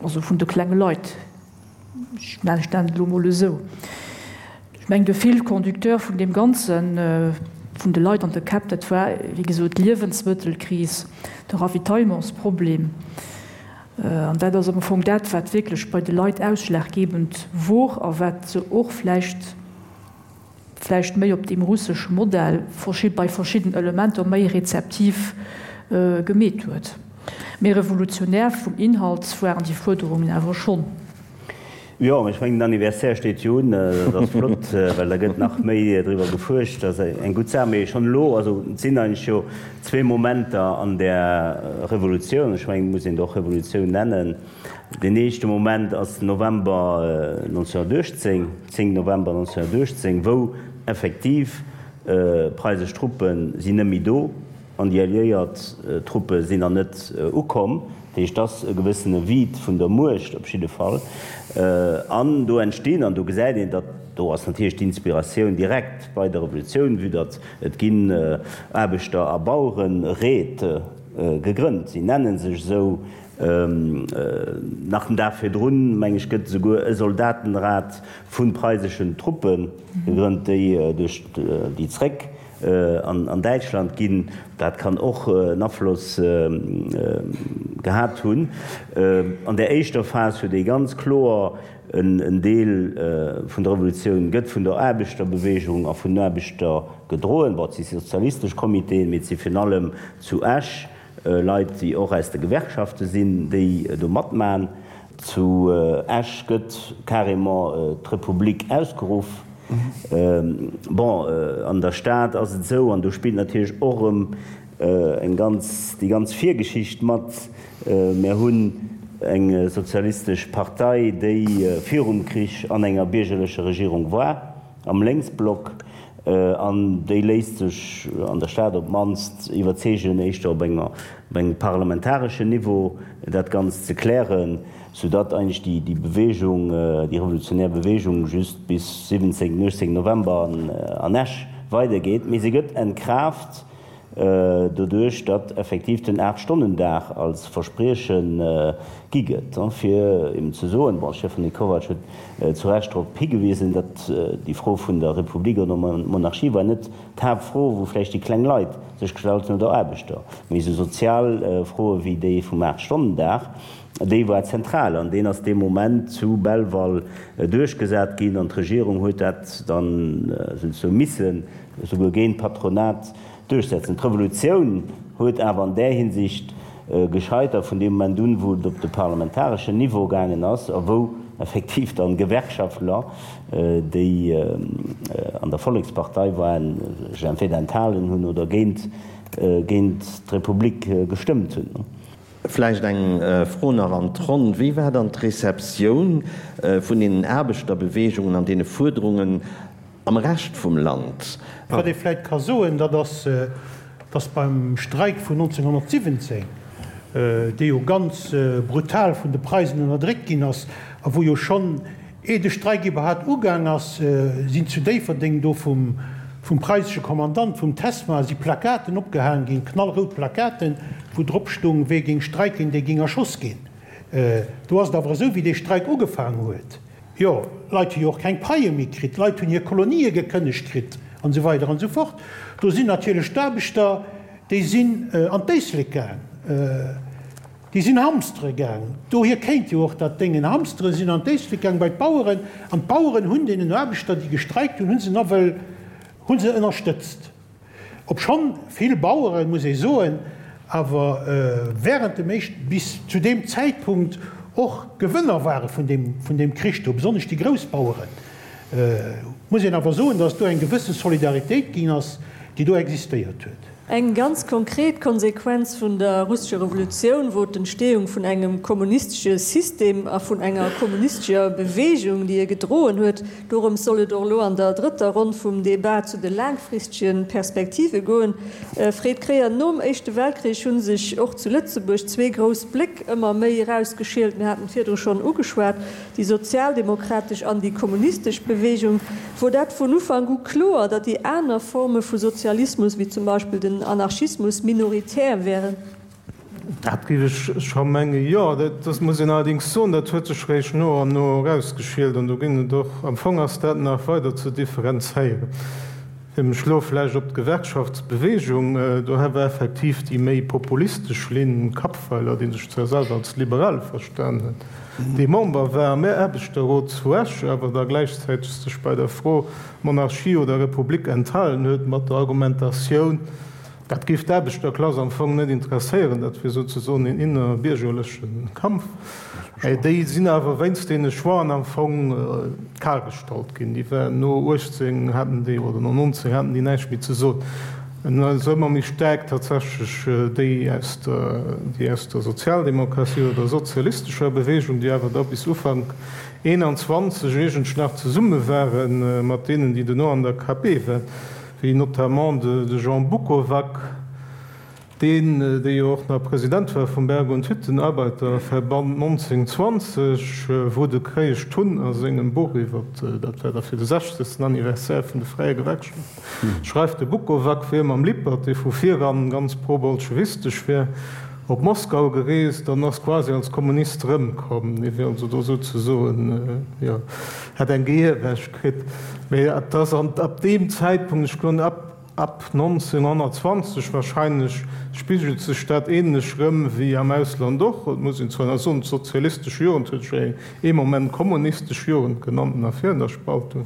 also vun de klenge Leit, ech nennen et elo emol esou. Ech mengen, de Fil conducteur vun deem Ganzen, vun de Leit an de Käpp, dat war, wéi gesot, d'Liewensmëttelkris, de Ravitaillementsproblem. An dat ass am Fong dat, wat wierklech bei de Leit ausschlaggebend wor a wat se och vläicht, vläicht méi op deem russesche Modell bei verschidden Elementer méi rezeptiv gemeet huet. Mee revolutionär vum Inhalt waren déi Fuerderungen awer schonn. Jo, ech mengen den Anniversaire steet jo un, dat ass flott, well da gëtt nach méi driwwer gefuerscht, dat ass eng gutt Saach. Mee schonn elo, also et sinn eigentlech jo zwee Momenter an där Revolutioun, ech mengen et muss een et och Revolutioun nennen. Deen éischte Moment ass den November 1918, 10 November 1918, wou effektiv preisesch Truppe sinn net méi do an déi alliéiert Truppe sinn nach net ukomm. Dat heescht, et ass e gewëssene Vide vun der Muecht op jidde Fall. An do entstinn, an do gesäit een, datt do ass natierlech d'Inspiratioun direkt bei der Revolutioun, vue datt et ginn Aarbechter a Bauereréit gegrënnt, si nenne sech esou, Nach den Dag virdrun, meng ech, gëtt esouguer e Soldatenrat vu preiseschen Truppe gegrënnt, déi duerch déi zréck an Däitschland ginn. Dat kann och en Afloss gehat hunn. An där éischter Phas huet ee ganz kloer en Deel vun der Revolutioun gëtt vun der Aarbechterbewegung a vun den Aarbechter gedroen. Bon, et si sozialistesch Comitéen, mee et si virun allem zu Esch Leit, déi och aus de Gewerkschafte sinn, déi do matmachen. Zu Esch gëtt carrément d'Republik ausgeruff. Bon, an der Stad ass et esou, an do spillt natierlech och erëm eng ganz, déi ganz Virgeschicht mat. Mär hunn eng sozialistesch Partei, déi virum Krich an enger biergerlecher Regierung war. Am Lénksblock, an déi léisst sech an der Stad op d'mannst iwwerzeegen, éischter op engem parlamentareschen Niveau dat Ganzt ze klären, soudatt eigentlech déi Bewegung, déi revolutionär Bewegung just bis 17, 18 November an Esch weidergeet. Mee se gëtt entkraaft doduerch datt effektiv den Aachtstonnendag als Versprieche gi gëtt, fir eben ze soen, bon, Stefanie Kovacs huet zu Recht drop higewisen, datt déi Fro vun der Republik oder Monarchie war net d'Haaptfro, wou vläicht déi kleng Leit sech gestallt hunn oder Aarbechter, mee esou sozial Froe wéi déi vum Aachtstonnendag, déi war zentral an deen ass dee Moment zu Belval duerchgesat ginn an d'Regierung huet dat dann souzesoe missen esouguer géint d'Patronat duerchsetzen. D'Revolutioun huet awer an där Hinsicht gescheitert vun deem Moment un, wou et op de parlamentareschen Niveau gaangen ass a wou effektiv dann Gewerkschaftler, déi an der Vollekspartei waren, sech entweder enthalen hunn oder géint d'Republik gestëmmt hunn. Vläicht eng Fro nach an d'Ronn, Wéi war dann d'Receptioun vun deenen Aarbechterbewegungen an deene Fuerderungen Am Rescht vum Land. Wat ee vläit ka soen, dat ass, datt beim Streik vun 1917, dee jo ganz brutal vun de Preisen ënnerdréckt ginn ass a wou jo schonn, ee de Streik iwwerhaapt ugaang ass, sinn zu Déifferdeng do vum preisesche Kommandant, vum Tesma, si Plakaten opgehaang ginn, knallrout Plakaten, wou drop stung, Wee géing streiken, dee géing erschoss ginn. Do ass et awer esou, wéi dee Streik ugefaang huet, Jo, Leit hu jo och keng Paie méi kritt, Leit hunn hir Kolonië gekënnegt kritt an esou weider an esou fort. Do sinn natierlech d'Aarbechter, déi sinn an d'Éislek gaang, déi sinn hamstere gaang. Dohier kéint jo och dat Déngen hamstere sinn an d'Éislek gaang bei d'Baueren an d'Baueren hunn deenen Aarbechter, déi gestreikt hunn, hu se nawell, hu se ënnerstëtzt. Obschonn vill Baueren, muss ee soen, awer während dem éischten, bis zu deem Zäitpunkt och Gewënner ware vun deem, vun deem Krich do, besonnesch déi grouss Baueren, muss een awer soen, datt do eng gewësse Solidaritéit ginn ass, déi do existéiert huet. Eng ganz konkret Konsequenz vun der russescher Revolutioun wor d'Entstehung vun engem kommunistesche System a vun enger kommunistescher Bewegung, déi e gedroen huet. Dorëms soll et och elo an der drëtter Ronn vum Debat zu de laangfristege Perspektive goen. Fred Kreyer, Nom Éischte Weltkrich hu sech och zu Lëtzebuerg zwee grouss Bléck ëmmer méi erausgeschielt. Mir haten et virdru schonn ugeschwat, déi sozialdemokratesch an déi kommunistesch Bewegung. Wor dat vun Ufank u kloer, datt déi aner Forme vu Sozialismus, wéi zum Beispill den Anarchismus, minoritär wären? Dat géif ech scho mengen, jo. Dat muss een allerdéngs soen, dat huet sech réischt no an no erausgeschielt an do ginn et och, am Fong ass dat nach weider ze differenzéieren. Fir mech elo vläicht op d'Gewerkschaftsbewegung, do war effektiv déi méi populistesch Linn, Kappweiler, dee sech zwar selwer als Liberale verstan huet, dee Member war am Aarbechterrot zu Esch, awer da gläichzäiteg sech bei der Fro Monarchie oder Republik enthalen huet, mat der Argumentatioun, dat géif d'Aarbechterklass am Fong net interesséieren, dat wier souzesoen een innerbiergerleche Kampf. Déi sinn awer wéinst deene Choixen am Fong kal gestallt ginn. Déi waren no 18 haten déi, oder no 19 haten déi näischt méi ze soen. En ass ëmmer méi staark tatsächlech déi aus der, déi aus der Sozialdemokratie oder der sozialistescher Bewegung, déi awer da bis Ufank 21 iergendsch nach zesumme ware mat deenen, déi duerno an der KP waren, wéi notamment de Jean Bukovac, Deen, dee jo och nach President war vum Berg und Hüttenarbeiterverband 1920, wou de Kréiesch Tun a sengem Buch iwwer, dat war da fir de 60. Anniversaire vun de Fräie Gewerkschaften, schreift, de Bukovac wier mam Lippert, dee vu viran ganz pro-bolschewistesch wier, op Moskau gereest an ass quasi als Kommunist erëmkomm. Dee wier also do souzesoen, jo, hätt eng Gehirwäsch kritt. Mee et ass ab deem Zäitpunkt, ech goen ab, Ab 1920 wahrscheinlech spigelt sech dat ähnlech rëm wéi am Ausland och. Et muss een zwar nach soen, d'sozialistesch Jugend huet sech ee Moment kommunistesch Jugend genannt nach virun der Spaltung.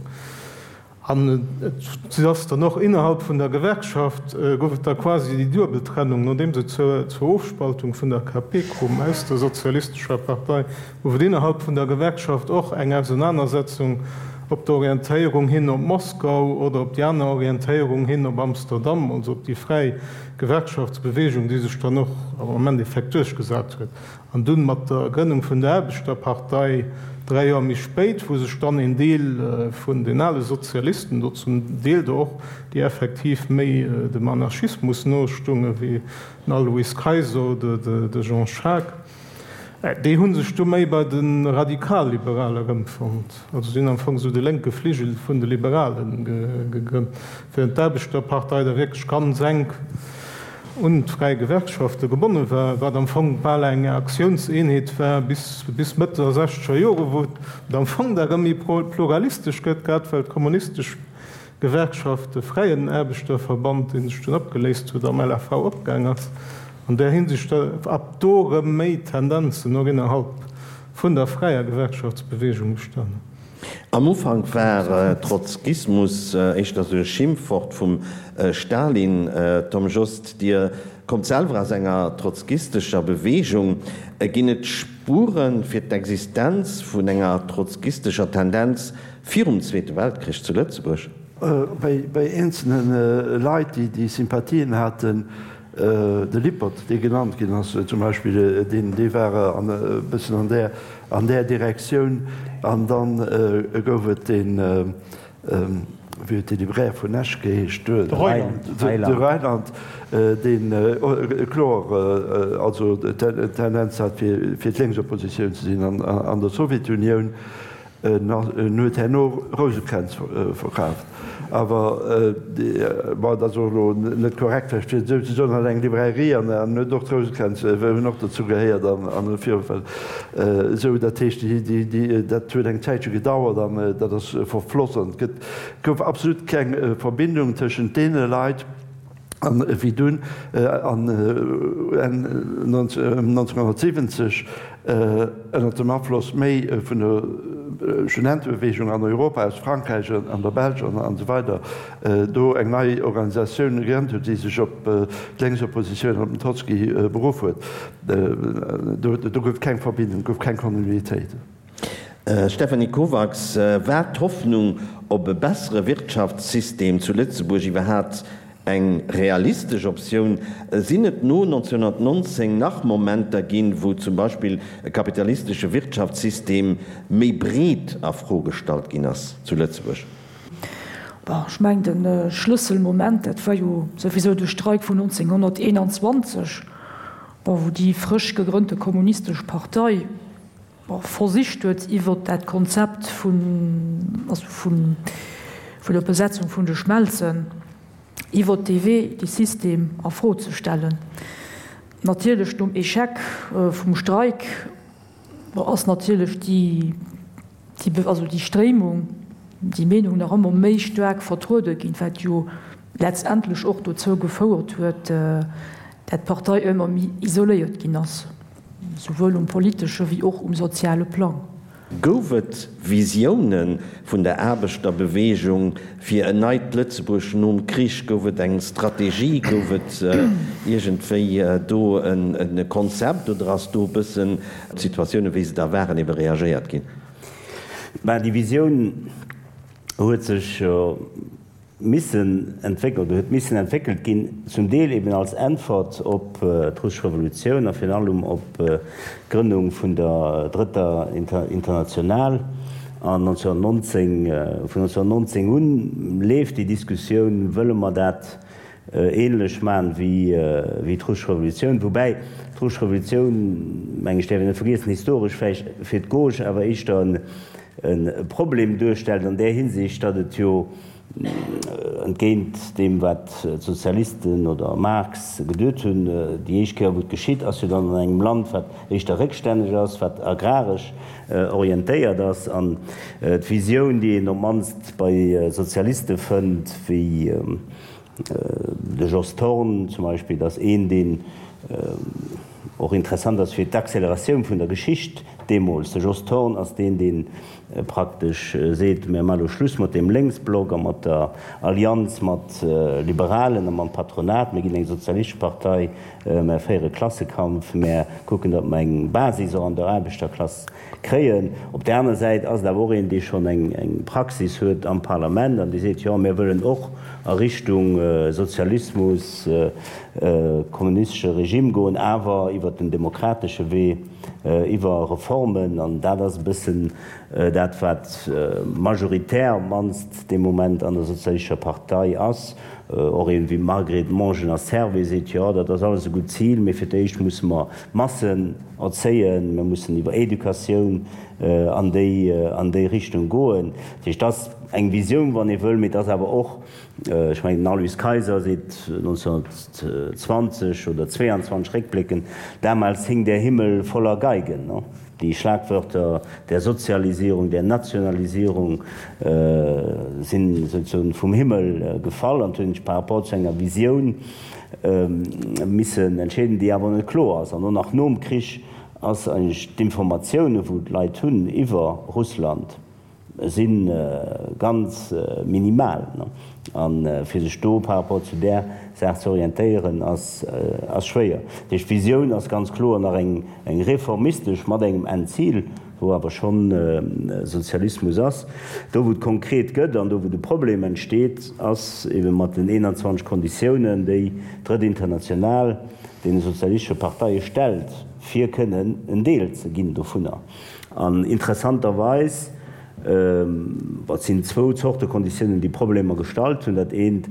An et ass dann och innerhalb vun der Gewerkschaft gouf et da quasi déi duebel Trennung, nodeems et zur Ofspaltung vun der KP koum aus der sozialistescher Partei, Gouf et innerhalb vun der Gewerkschaft och eng Ausenanersetzung op der Orientéierung hin op Moskau oder op déi aner Orientéierung hin op Amsterdam, also op déi fräi Gewerkschaftsbewegung, déi sech dann och am Endeffekt duerchgesat huet. An dunn mat der Grënnung vun der Aarbechterpartei 3 Joer méi spéit, wou sech dann een Deel vun den ale Sozialisten, do zum Deel der och, déi effektiv méi dem Anarchismus nostungen, wéi den Alois Kayser oder de Jean Schaack, Déi hu sech du méi bei de Radikalliberale erëmfonnt, also si hunn am Fong esou de lénke Fligel vun de Liberale gegrënnt, während d'Aarbechterpartei da wierklech ganz enk un d'fräi Gewerkschafte gebonne war, wat am Fong bal eng Aktiounseenheet war bis bis Mëtt der sechzeger Jore, wou et am Fong da erëm méi pluralistesch gëtt, grad well d'kommunistesch Gewerkschaft, de Fräien Aarbechterverband, dee sech dunn opgeléist huet, am LAV opgaang ass. An där Hinsicht ab do erëm méi Tendenzen och innerhalb vun der fräier Gewerkschaftsbewegung bestanen. Am Ufank war Trotzkismus éischter sou e Schimpfwort vum Stalin. Tom Jost, Dir kommt selwer aus enger trotzkistescher Bewegung. Ginn et Spuere fir d'Existenz vun enger trotzkistescher Tendenz Virum Zweete Weltkrich zu Lëtzebuerg? Bei eenzelne Leit, déi Sympathien haten, de Lippert, dee genannt ginn ass zum Beispill, deen, dee war e bëssen an där, an där Direktioun. An da gouf et deen, wéi huet dee Libraire vun Esch geheescht? De Reuland, deen kloer also d'Tendenz hat, fir d'Lénksoppositioun ze sinn an der Sowjetunioun. En huet herno Rousekränz verkaaft. Awer, bon, dat ass och elo net korrekt vläicht fir et esou ze soen, hat eng Librairie an en huet och d'Rousekränz, hunn och dozou gehéiert an virun esou. Dat heescht, dat huet eng Zäitche gedauert an dat ass verfloss an et gëtt, gouf absolut keng Verbindung tëschent deene Leit. An wéi dunn an Enn 1970 ënner dem Afloss méi vun der Studentebewegung an Europa, aus Frankräich an der Belsch an esou weider, do eng nei Organisatioun gegrënnt huet, déi sech op d'Lénksoppositioun an op den Trotzki beruff huet, do gouf et keng Verbindung, gouf keng Kontinuitéit. Stéphanie Kovacs, War d'Hoffnung op e bessere Wirtschaftssystem zu Lëtzebuerg iwwerhaapt. Eng realistesch Optioun? Sinn et no 1919 nach Momenter ginn, wou zum Beispill e kapitalistesche Wirtschaftssystem méi breet a Fro gestallt ginn ass zu Lëtzebuerg? Bon, ech mengen, de Schlësselmoment, dat war jo souwisou de Streik vun 1921, bon, wou déi frësch gegrënnte Kommunistesch Partei, bon, versicht huet, iwwert dat Konzept vun, also vun, vun der Besetzung vun de Schmelzen, iwwert dee Wee dee System a Fro ze stellen. Natierlech nom Échec vum Streik, bon, ass natierlech déi, déi, also déi Stréimung, déi Meenung nach ëmmer méi staark vertruede ginn, wat jo letztendlech och dozou gefouert huet, dat d'Partei ëmmer méi isoléiert ginn ass. Souwuel um politesche wéi och um soziale Plang. Gouf et Visioune vun der Aarbechterbeweegung fir en neit Lëtzebuerg nom Krich? Gouf et eng Strategie? Gouf et iergendwéi do e Konzept oder ass do e bëssen op d'Situatioune wéi se da waren ebe reagéiert ginn? Mä déi Visioun huet sech missen entwéckelt oder huet missen entwéckelt ginn, zum Deel eben als Äntwert op d'Russesch Revolutioun a virun allem op d'Grënnung vun der Drëtter International. An 1919, vun 1919 un leeft déi Diskussioun, Wëlle mer dat ähnlech maachen wéi d'Russesch Revolutioun? Woubäi d'Russesch Revolutioun, meng ech, däerf een net vergiessen, historesch vläicht fir d'Gauche awer éischter e Problem duerstellt an där Hinsicht, datt et jo entgéint deem wat d'Sozialisten oder Marx geduet hunn, déi éischt Kéier wou et geschitt, ass jo dann an engem Land wat éischter réckstänneg ass, wat agraresch orientéiert ass. An d'Visioun, déi een op d'mannst bei Sozialiste fënnt, wéi de Jos Thorn zum Beispill, ass een, deen och interessant ass fir d'Acceleratioun vun der Geschicht deemools. De Jos Thorn ass deen, dee praktesch seet, Mir maache lo Schluss mat deem Lénksblock a mat der Allianz mat Liberalen a mam Patronat. Mir ginn eng sozialistesch Partei, mär féiere Klassekampf, mär kucken, datt mer eng Basis och an der Aarbechterklass kréien. Op där aner Säit ass et awer och een, dee schonn eng Praxis huet am Parlament an dee seet, Jo, mir wëllen och a Richtung Sozialismus, kommunistesche Regime goen, awer iwwert den demokratesche Wee, iwwer Reformen. An dat ass e bëssen dat, wat majoritär op d'mannst dee Moment an der Sozialistescher Partei ass. Och een wéi Margret Mongener-Servais seet, Jo, dat ass alles e gutt Zil, mee fir d'éischt musse mer d'Massen erzéien, mir mussen iwwer Educatioun an déi an déi Richtung goen. Dat heescht, dat ass eng Visioun, wann ee wëll, mee et ass awer och, ech mengen, den Aloyse Kayser seet 1920 oder 22 réckbléckend, Damals hing der Himmel voller Geigen. Déi Schlagwörter der Sozialisierung, der Nationalisierung sinn souzesoen vum Himmel gefall an hunn sech par rapport zu enger Visioun missen entscheeden, déi awer net kloer ass. An och nach nom Krich ass eigentlech d'Informatioune wou d'Leit hunn iwwer Russland si ganz minimal. A fir sech do par rapport zu där Saach ze orientéieren ass schwéier. Dat heescht, d'Visioun ass ganz kloer nach eng reformistesch mat engem Endzil, wou awer schonn Sozialismus ass. Do wou et konkret gëtt an do wou de Problem entsteet, ass ebe mat den 21 Konditiounen, déi d'Drëtt International deene sozialistesche Parteie stellt, fir kënnen en Deel ze ginn dovunner. An interessanterweis, et sinn zwou Zorte Konditiounen, déi Problemer gestallt hunn. Dat eent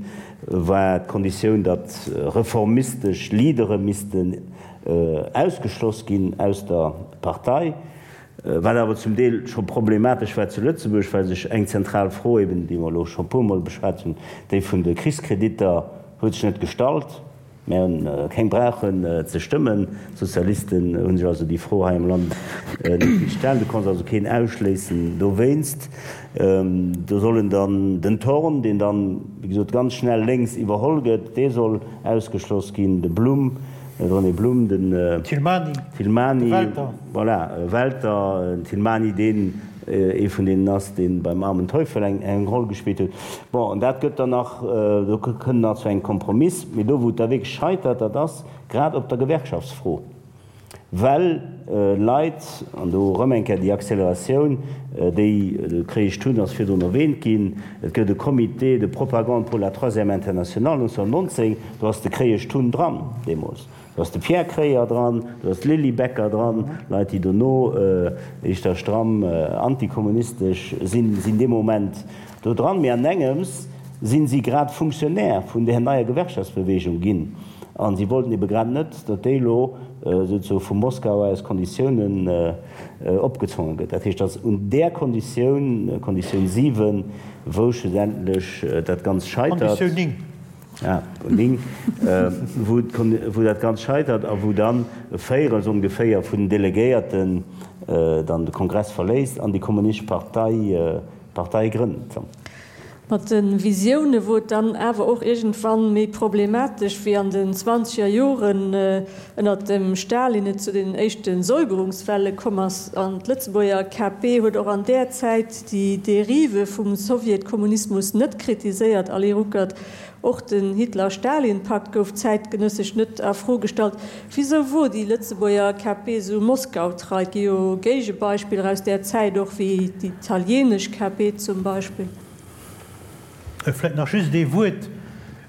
war d'Konditioun, datt reformistesch Leadere missten ausgeschloss ginn aus der Partei, wat awer zum Deel scho problematesch war zu Lëtzebuerg, well sech eng zentral Fro eben, déi mer elo scho e puermol beschwat hunn, déi vun de Krichskreditter, huet sech net gestallt. Mir hunn keng brauchen ze stëmmen. D'Sozialisten hu sech also déi Fro hei am Land net gestallt. Du konns also keen ausschléissen dowéinst. Do sollen dann den Thorn, deen dann, wéi gesot, ganz schnell lénks iwwerholl gëtt, dee soll ausgeschloss ginn, de Blum, de René Blum, den Thilmany, Thilmany, de Welter. Voilà, Welter, den Thilmany, deen ee vun deenen ass, dee beim Armen Teufel eng Roll gespillt huet. Bon, an dat gëtt dann nach, do kënnt nach zu engem Kompromiss. Mee do, wou et da wierklech scheitert, dat ass grad op der Gewerkschaftsfro. Well Leit, an do erëm eng Kéier déi Acceleratioun, déi de Kreesch Thun ass virdrun erwähnt ginn, et gëtt e Comité de propagande pour la Troisième Internationale 1919, do ass de Kreesch Thun dran deemools, do ass de Pierre Kreyer dran, do ass d'Lily Becker dran, Leit, déi dono éischter stramm antikommunistesch sinn, sinn dee Moment do dran. Mee an engems sinn si grad Fonctionnaire vun där neier Gewerkschaftsbewegung ginn. A si wollten ebe grad net, datt déi elo souzesoe vu Moskau aus Konditiounen opgezwonge gëtt. Dat heescht, datt un där Konditioun, Konditioun 7, wou schlussendlech dat Ganzt scheitert. Konditioun 9. Ah, 9, wou dat Ganzt scheitert a wou dann e Véirels ongeféier vun den Delegéierten dann de Kongress verléisst an déi Kommunistesch Partei Partei grënnt. Mat de Visioune wor et dann awer och iergendwann méi problematesch, wéi an den zwanzeger Joren ënnert dem Stalin et zu den éischte Säuberungswelle komm ass. An d'Lëtzebuerger KP huet och an där Zäit déi Derive vum Sowjetkommunismus net kritiséiert, Ali Ruckert. Och den Hitler-Stalin-Pakt gouf zäitgenëssesch net a Fro gestallt. Wisou wor déi Lëtzebuerger KP esou Moskau-trei? Et gi jo Géigebeispiller aus där Zäit och, wéi déi italienesch KP zum Beispill. Vläit nach just ee Wuert,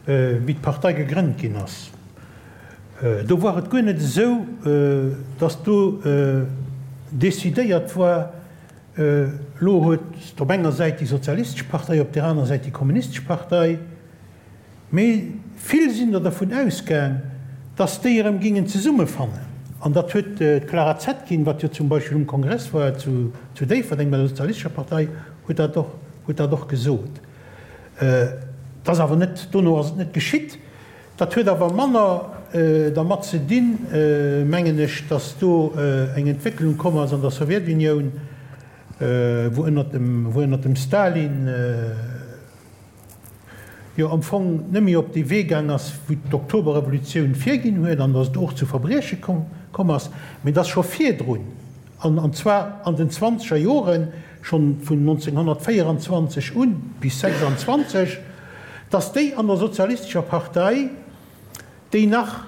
wéi d'Partei gegrënnt ginn ass. Do war et guer net esou, datt do decidéiert war, Elo huet op enger Säit déi sozialistesch Partei, op där aner Säit déi kommunistesch Partei. Mee vill sinn der dervun ausgaang, datt déi erëm gingen zesummefannen. An dat huet d'Clara Zetkin, wat jo zum Beispill um Kongress war zu Déifferdeng bei der sozialistescher Partei, huet dat och, huet dat och gesot. Et ass awer net, dono ass et net geschitt. Dat huet awer manner dermat ze dinn, mengen ech, datt do eng Entwécklung komm ass an der Sowjetunioun, wou ënnert dem, wou ënnert dem Stalin jo am Fong net méi op dee Wee gaang ass, wou d'Oktoberrevolutioun virginn huet, an datt et och zu Verbrieche komm ass, mee datt scho virdrun, an an zwar an den zwanzeger Joren, schonn vun 1924 un bis 26, datt déi an der Sozialistescher Partei, déi nach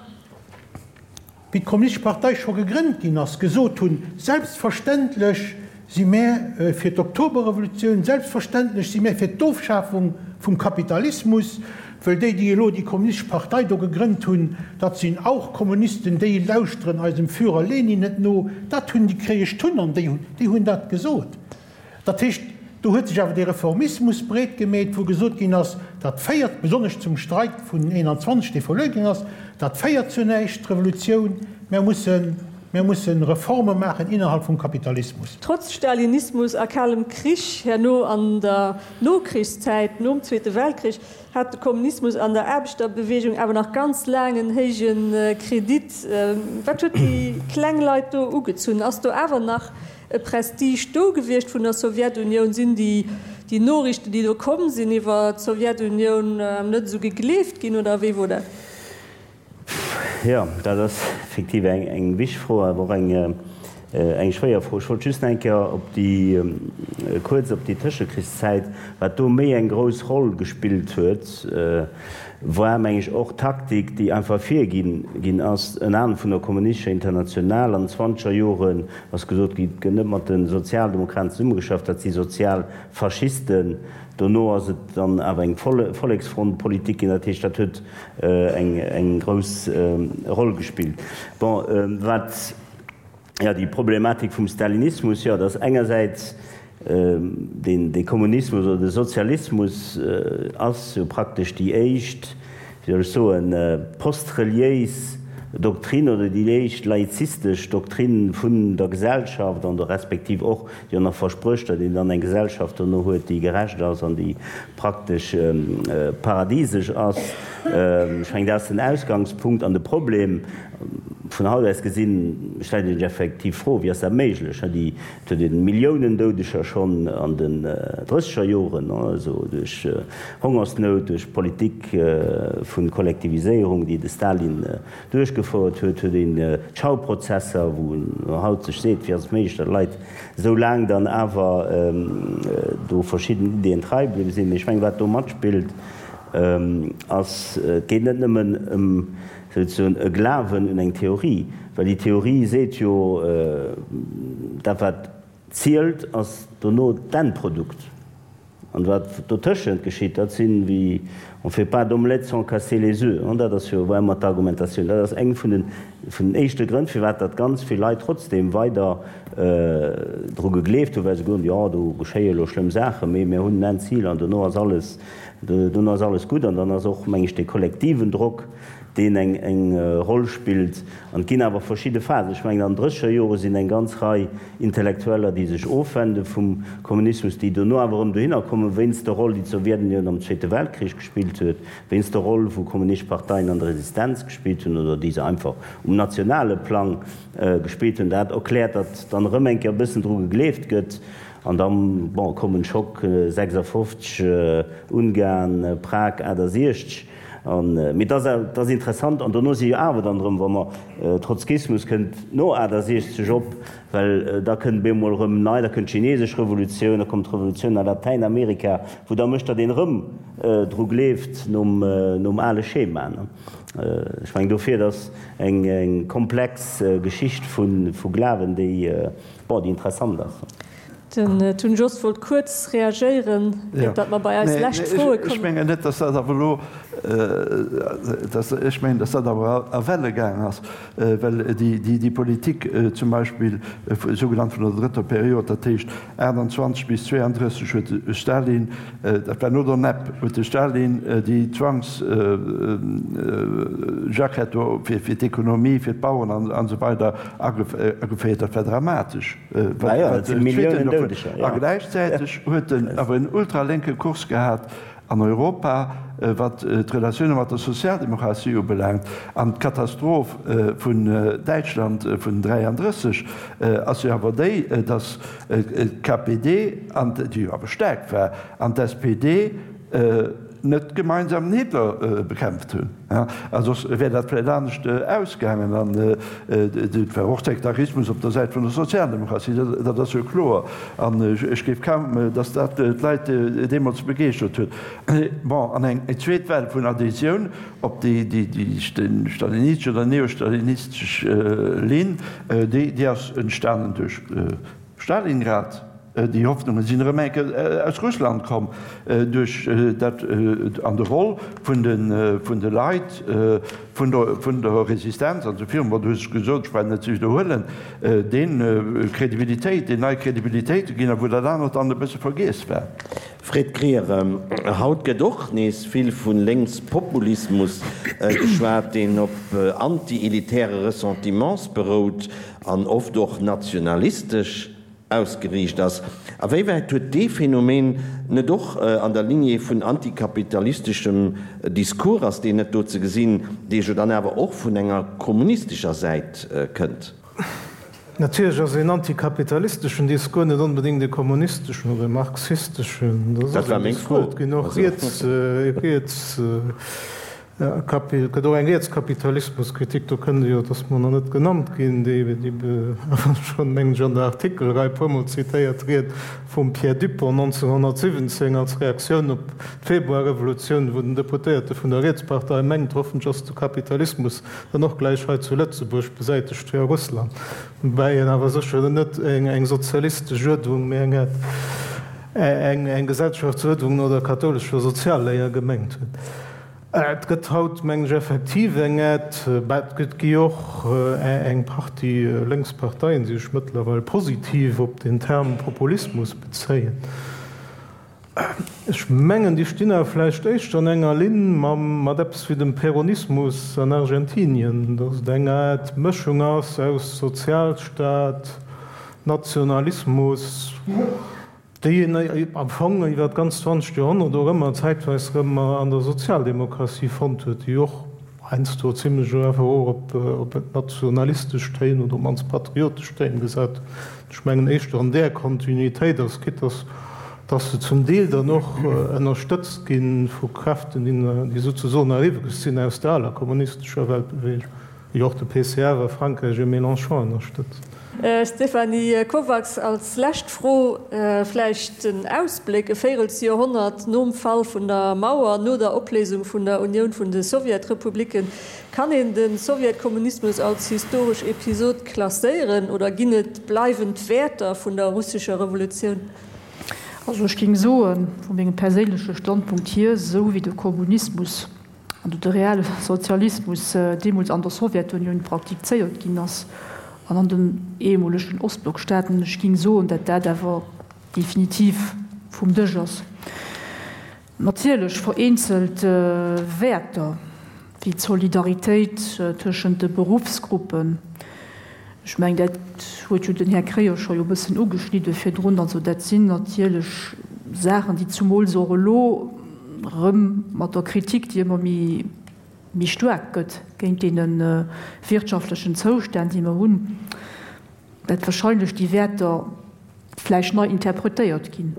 wéi d'Kommunistesch Partei scho gegrënnt ginn ass, gesot hunn, Selbstverständlech si mär fir d'Oktoberrevolutioun, selbstverständlech si mär fir d'Ofschafung vum Kapitalismus, wëll déi, déi elo déi Kommunistesch Partei do gegrënnt hunn, dat sinn auch Kommunisten, déi lauschteren eisem Führer Lenin net no. Dat hunn déi Kréiesch Tunn an déi hunn dat gesot. Dat heescht, do huet sech awer dee Reformismus breet gemeet, wou gesot ginn ass, dat féiert, besonnesch zum Streik vun 21, dee verluer ginn ass, dat féiert zu näischt, d'Revolutioun, mär mussen, mär mussen Reforme maachen innerhalb vum Kapitalismus. Trotz Stalinismus a Kalem Krich herno an der Nokrichszäit, nom Zweete Weltkrich, hat de Kommunismus an der Aarbechterbewegung awer nach ganz laang en héije Kredit. Wat huet déi kleng Leit do ugezunn? Ass do awer nach e Prestige do gewiescht vun der Sowjetunioun? Sinn déi déi Noriichten, déi do komm sinn iwwer d'Sowjetunioun, net esou gegleeft ginn oder wéi wor dat? Jo, dat ass effektiv eng wichteg Fro, awer och eng schwéier Fro. Ech wollt just nach eng Kéier op déi, kuerz op déi Tëschekrichszäit, wat do méi eng grouss Roll gespillt huet, war, meng ech, och d'Taktik, déi einfach virginn ginn ass, ënner anerem vun der Kommunistescher Internationale an den zwanzeger Joren, ass gesot ginn, et gëtt net mat de Sozialdemokraten zesummegeschafft, dat si Sozialfaschisten. Dono ass et dann awer eng Volleksfrontpolitik ginn, dat heescht, dat huet eng grouss Roll gespillt. Bon, wat, jo, déi Problematik vum Stalinismus, jo, dat ass engersäits deen, dee Kommunismus oder de Sozialismus ass jo praktesch déi éischt, wéi soll ech soen, postreliéis Doktrinn oder déi éischt laizistesch Doktrinn vun der Gesellschaft an der respektiv och jo nach versprécht, datt een dann eng Gesellschaft dono huet, déi gerecht ass an déi praktesch paradisesch ass. Ech mengen, dat ass den Ausgangspunkt an de Problem. Vun haut aus gesinn stellt ee sech effektiv d'Fro, Wéi ass dat méiglech? Déi Et huet een Milliounen Doudeger schonn an den drësseger Joren, also duerch Hongersnout, duerch d'Politik vu Kollektiviséierung, déi de Stalin duerchgefouert huet, huet een d'Schauprozesser, wou een haut sech seet, wéi ass et méiglech, datt Leit esou laang dann awer do verschidden Ideeën trei bliwwe sinn. Mee ech mengen, wat do matspillt, ass, et geet net nëmmen ëm. Souzesoen e Glawen un eng Theorie, well déi Theorie seet jo, dat wat zielt ass dono d'Endprodukt. An wat dotëschent geschitt, dat sinn, wéi on fait pas d'omelette sans casser les oeufs, an dat ass jo war ëmmer d'Argumentatioun. Dat ass eng vun den vun den éischte Grënn, firwat datt ganz vill Leit trotzdem weider dru gegleeft hunn, well se gesot hunn, jo do geschéie elo schlëmm Saachen, mee mir hunn en Endzil an dono ass alles, dono ass alles gutt. An dann ass och, meng ech, dee kollektiven Drock, deen eng eng Roll spillt. An et ginn awer verschidde Phasen. Ech mengen, an den drësseger Jore sinn eng ganz Rei Intellektueller, déi sech ofwende vum Kommunismus, déi dono awer erëm dohinner kommen, wéinst der Roll, déi d'Sowjetunioun am Zweete Weltkrich gespillt huet, wéinst der Roll, wou kommunistesch Parteien an der Resistenz gespillt hunn oder déi se einfach um nationale Plang gespillt hunn. Dat erkläert, datt dann erëm eng Kéier e bëssen dru gegleeft gëtt. An da, bon, kommen Schock 56, Ungarn, Prag 68. An, mee et ass, et ass interessant, an dono si jo awer dann erëm, wa mer, Trotzkismus kënnt no 68 op, well da kënnt op eemol erëm nei, da kënnt d'chinesesch Revolutioun, da kommt d'Revolutioun a Latäinamerika, wou da mécht, datt een erëm dru gleeft nom, nom ale Schema. Ech mengen dofir, et ass eng, eng komplex Geschicht vu, vu Glawen, déi, bon, déi interessant ass. Den Tun Jost wollt kuerz reagéieren, iert datt mer bei eis lescht Froe kommen. Ech mengen net, datt dat awer elo, ech mengen, datt dat awer a Welle gaang ass, well déi Politik zum Beispill sougenannt vun der drëtter Period, dat heescht 28 bis 32, huet de Stalin, dat war no der NEP, huet de Stalin déi Zwangsjackett do fir d'Ekonomie, fir d'Bauern an esou weider ageféiert. Dat war dramatesch. A gläichzäiteg huet en awer en ultralénke Kurs gehat an Europa, wat d'Relatioune mat der Sozialdemokratie ubelaangt. An d'Katastroph vun Däitschland vun 33 ass jo awer déi, datt d'KPD, déi jo awer staark war, an d'SPD net gemeinsam den Hitler bekämpft hunn. A soss wär dat vläicht anescht ausgaangen. An et war och Sektarismus op der Säit vun der Sozialdemokratie, dat ass jo kloer. An ech géif kaum, datt dat d'Leit deemools begeeschtert huet. Bon, an eng zweet Well vun Adhésioun op déi stalinistesch oder neostalinistesch Linn, déi ass entstanen duerch Stalingrad. Déi Hoffnunge sinn erëm eng Kéier aus Russland komm duerch dat an de Roll vun de Leit vun der Resistenz an esou virun. Bon, du hues et gesot, ech brauch net ze widderhuelen, deen Kredibilitéit, deen nei Kredibilitéit ginn a wou dat anert dann e bësse vergiess war. Fred Krier, Haut gëtt och nees vill vu Lénkspopulismus geschwat, deen op anti-elitäre Ressentiments berout an oft och nationalistesch. Ausgeriicht ass. A wéiwäit huet dee Phänomen net och an der Lignée vun antikapitalisteschem Discours, ass deen net do ze gesinn, dee jo dann awer och vun enger kommunistescher Säit kënnt? Natierlech ass een antikapitalisteschen Discours net onbedéngt e kommunisteschen oder e marxisteschen. Dat war meng Fro. Et ginn och riets, riets. Et gëtt och eng Rietskapitalismuskritik, do kënnt e jo, et ass mer nach net genannt ginn, déi awer schonn, mengen ech, an der Artikelrei e puermol zitéiert Ried vum Pierre Dupong 1917 als Reaktioun op d'Februarrevolutioun, wou den Deputéierte vun der Rietspartei mengt, hoffentlech ass de Kapitalismus dann och gläich hei zu Lëtzebuerg besäitegt wéi a Russland, woubäi en awer sécher net eng sozialistesch Uerdnung, mee eng eng Gesellschaftsuerdnung no der kathoulescher Sozialléier gemengt huet. Et gëtt haut, mengen ech, effektiv eng Aide, mä et gëtt gi och eng Partie lénks Parteien, déi sech mëttlerweil positiv op den Term Populismus bezéien. Ech mengen, déi stinn awer vläicht éischter an enger Linn mat eppes wéi dem Peronismus an Argentinien, datt et eng Aart Mëschung ass aus Sozialstaat, Nationalismus, déi een am Fong iwwer d'ganzt zwanzegt Joerhonnert och ëmmer zäitweis erëm an der Sozialdemokratie fonnt huet, déi och heiansdo zimlech einfach och op nationalistesch Téin oder op d'mannst patriotesch Téin gesat huet. Ech mengen éischter an där Kontinuitéit ass, quitte dass dass se zum Deel dann och ënnerstëtzt gi vu Kräften, déi souzesoen eriwweg sinn aus der aler kommunistescher Weltbewegung. Wéi och de PCF a Frankräich e Mélenchon ënnerstëtzt. Stéphanie Kovacs, als lescht Fro vläicht den Ausbléck, e Véirelsjoerhonnert nom Fall vun der Mauer, no der Opléisung vun der Unioun vun de Sowjetrepublicken, kann een de Sowjetkommunismus als historesch Episod klasséieren oder ginn et bleiwend Wäerter vun der russescher Revolutioun? Also ech géing soen, vu mengem perséinleche Standpunkt hier, esou wéi de Kommunismus an de reelle Sozialismus deemools an der Sowjetunioun praktizéiert ginn ass an an den ehemolegen Ostblockstaaten, ech géing soen, dat dat awer definitiv vum Dësch ass. Natierlech vereenzelt Wäerter wéi d'Solidaritéit tëschent de Beruffsgruppen, ech mengen, dat huet jo den Här Kreyer scho jo e bëssen ugeschnidde virdrun, also dat sinn natierlech Saachen, déi zumools och elo erëm mat der Kritik, déi ëmmer méi, méi staark gëtt géint deene wirtschaftlechen Zoustänn, déi mer hunn, dat wahrscheinlech déi Wäerter vläicht nei interpretéiert ginn.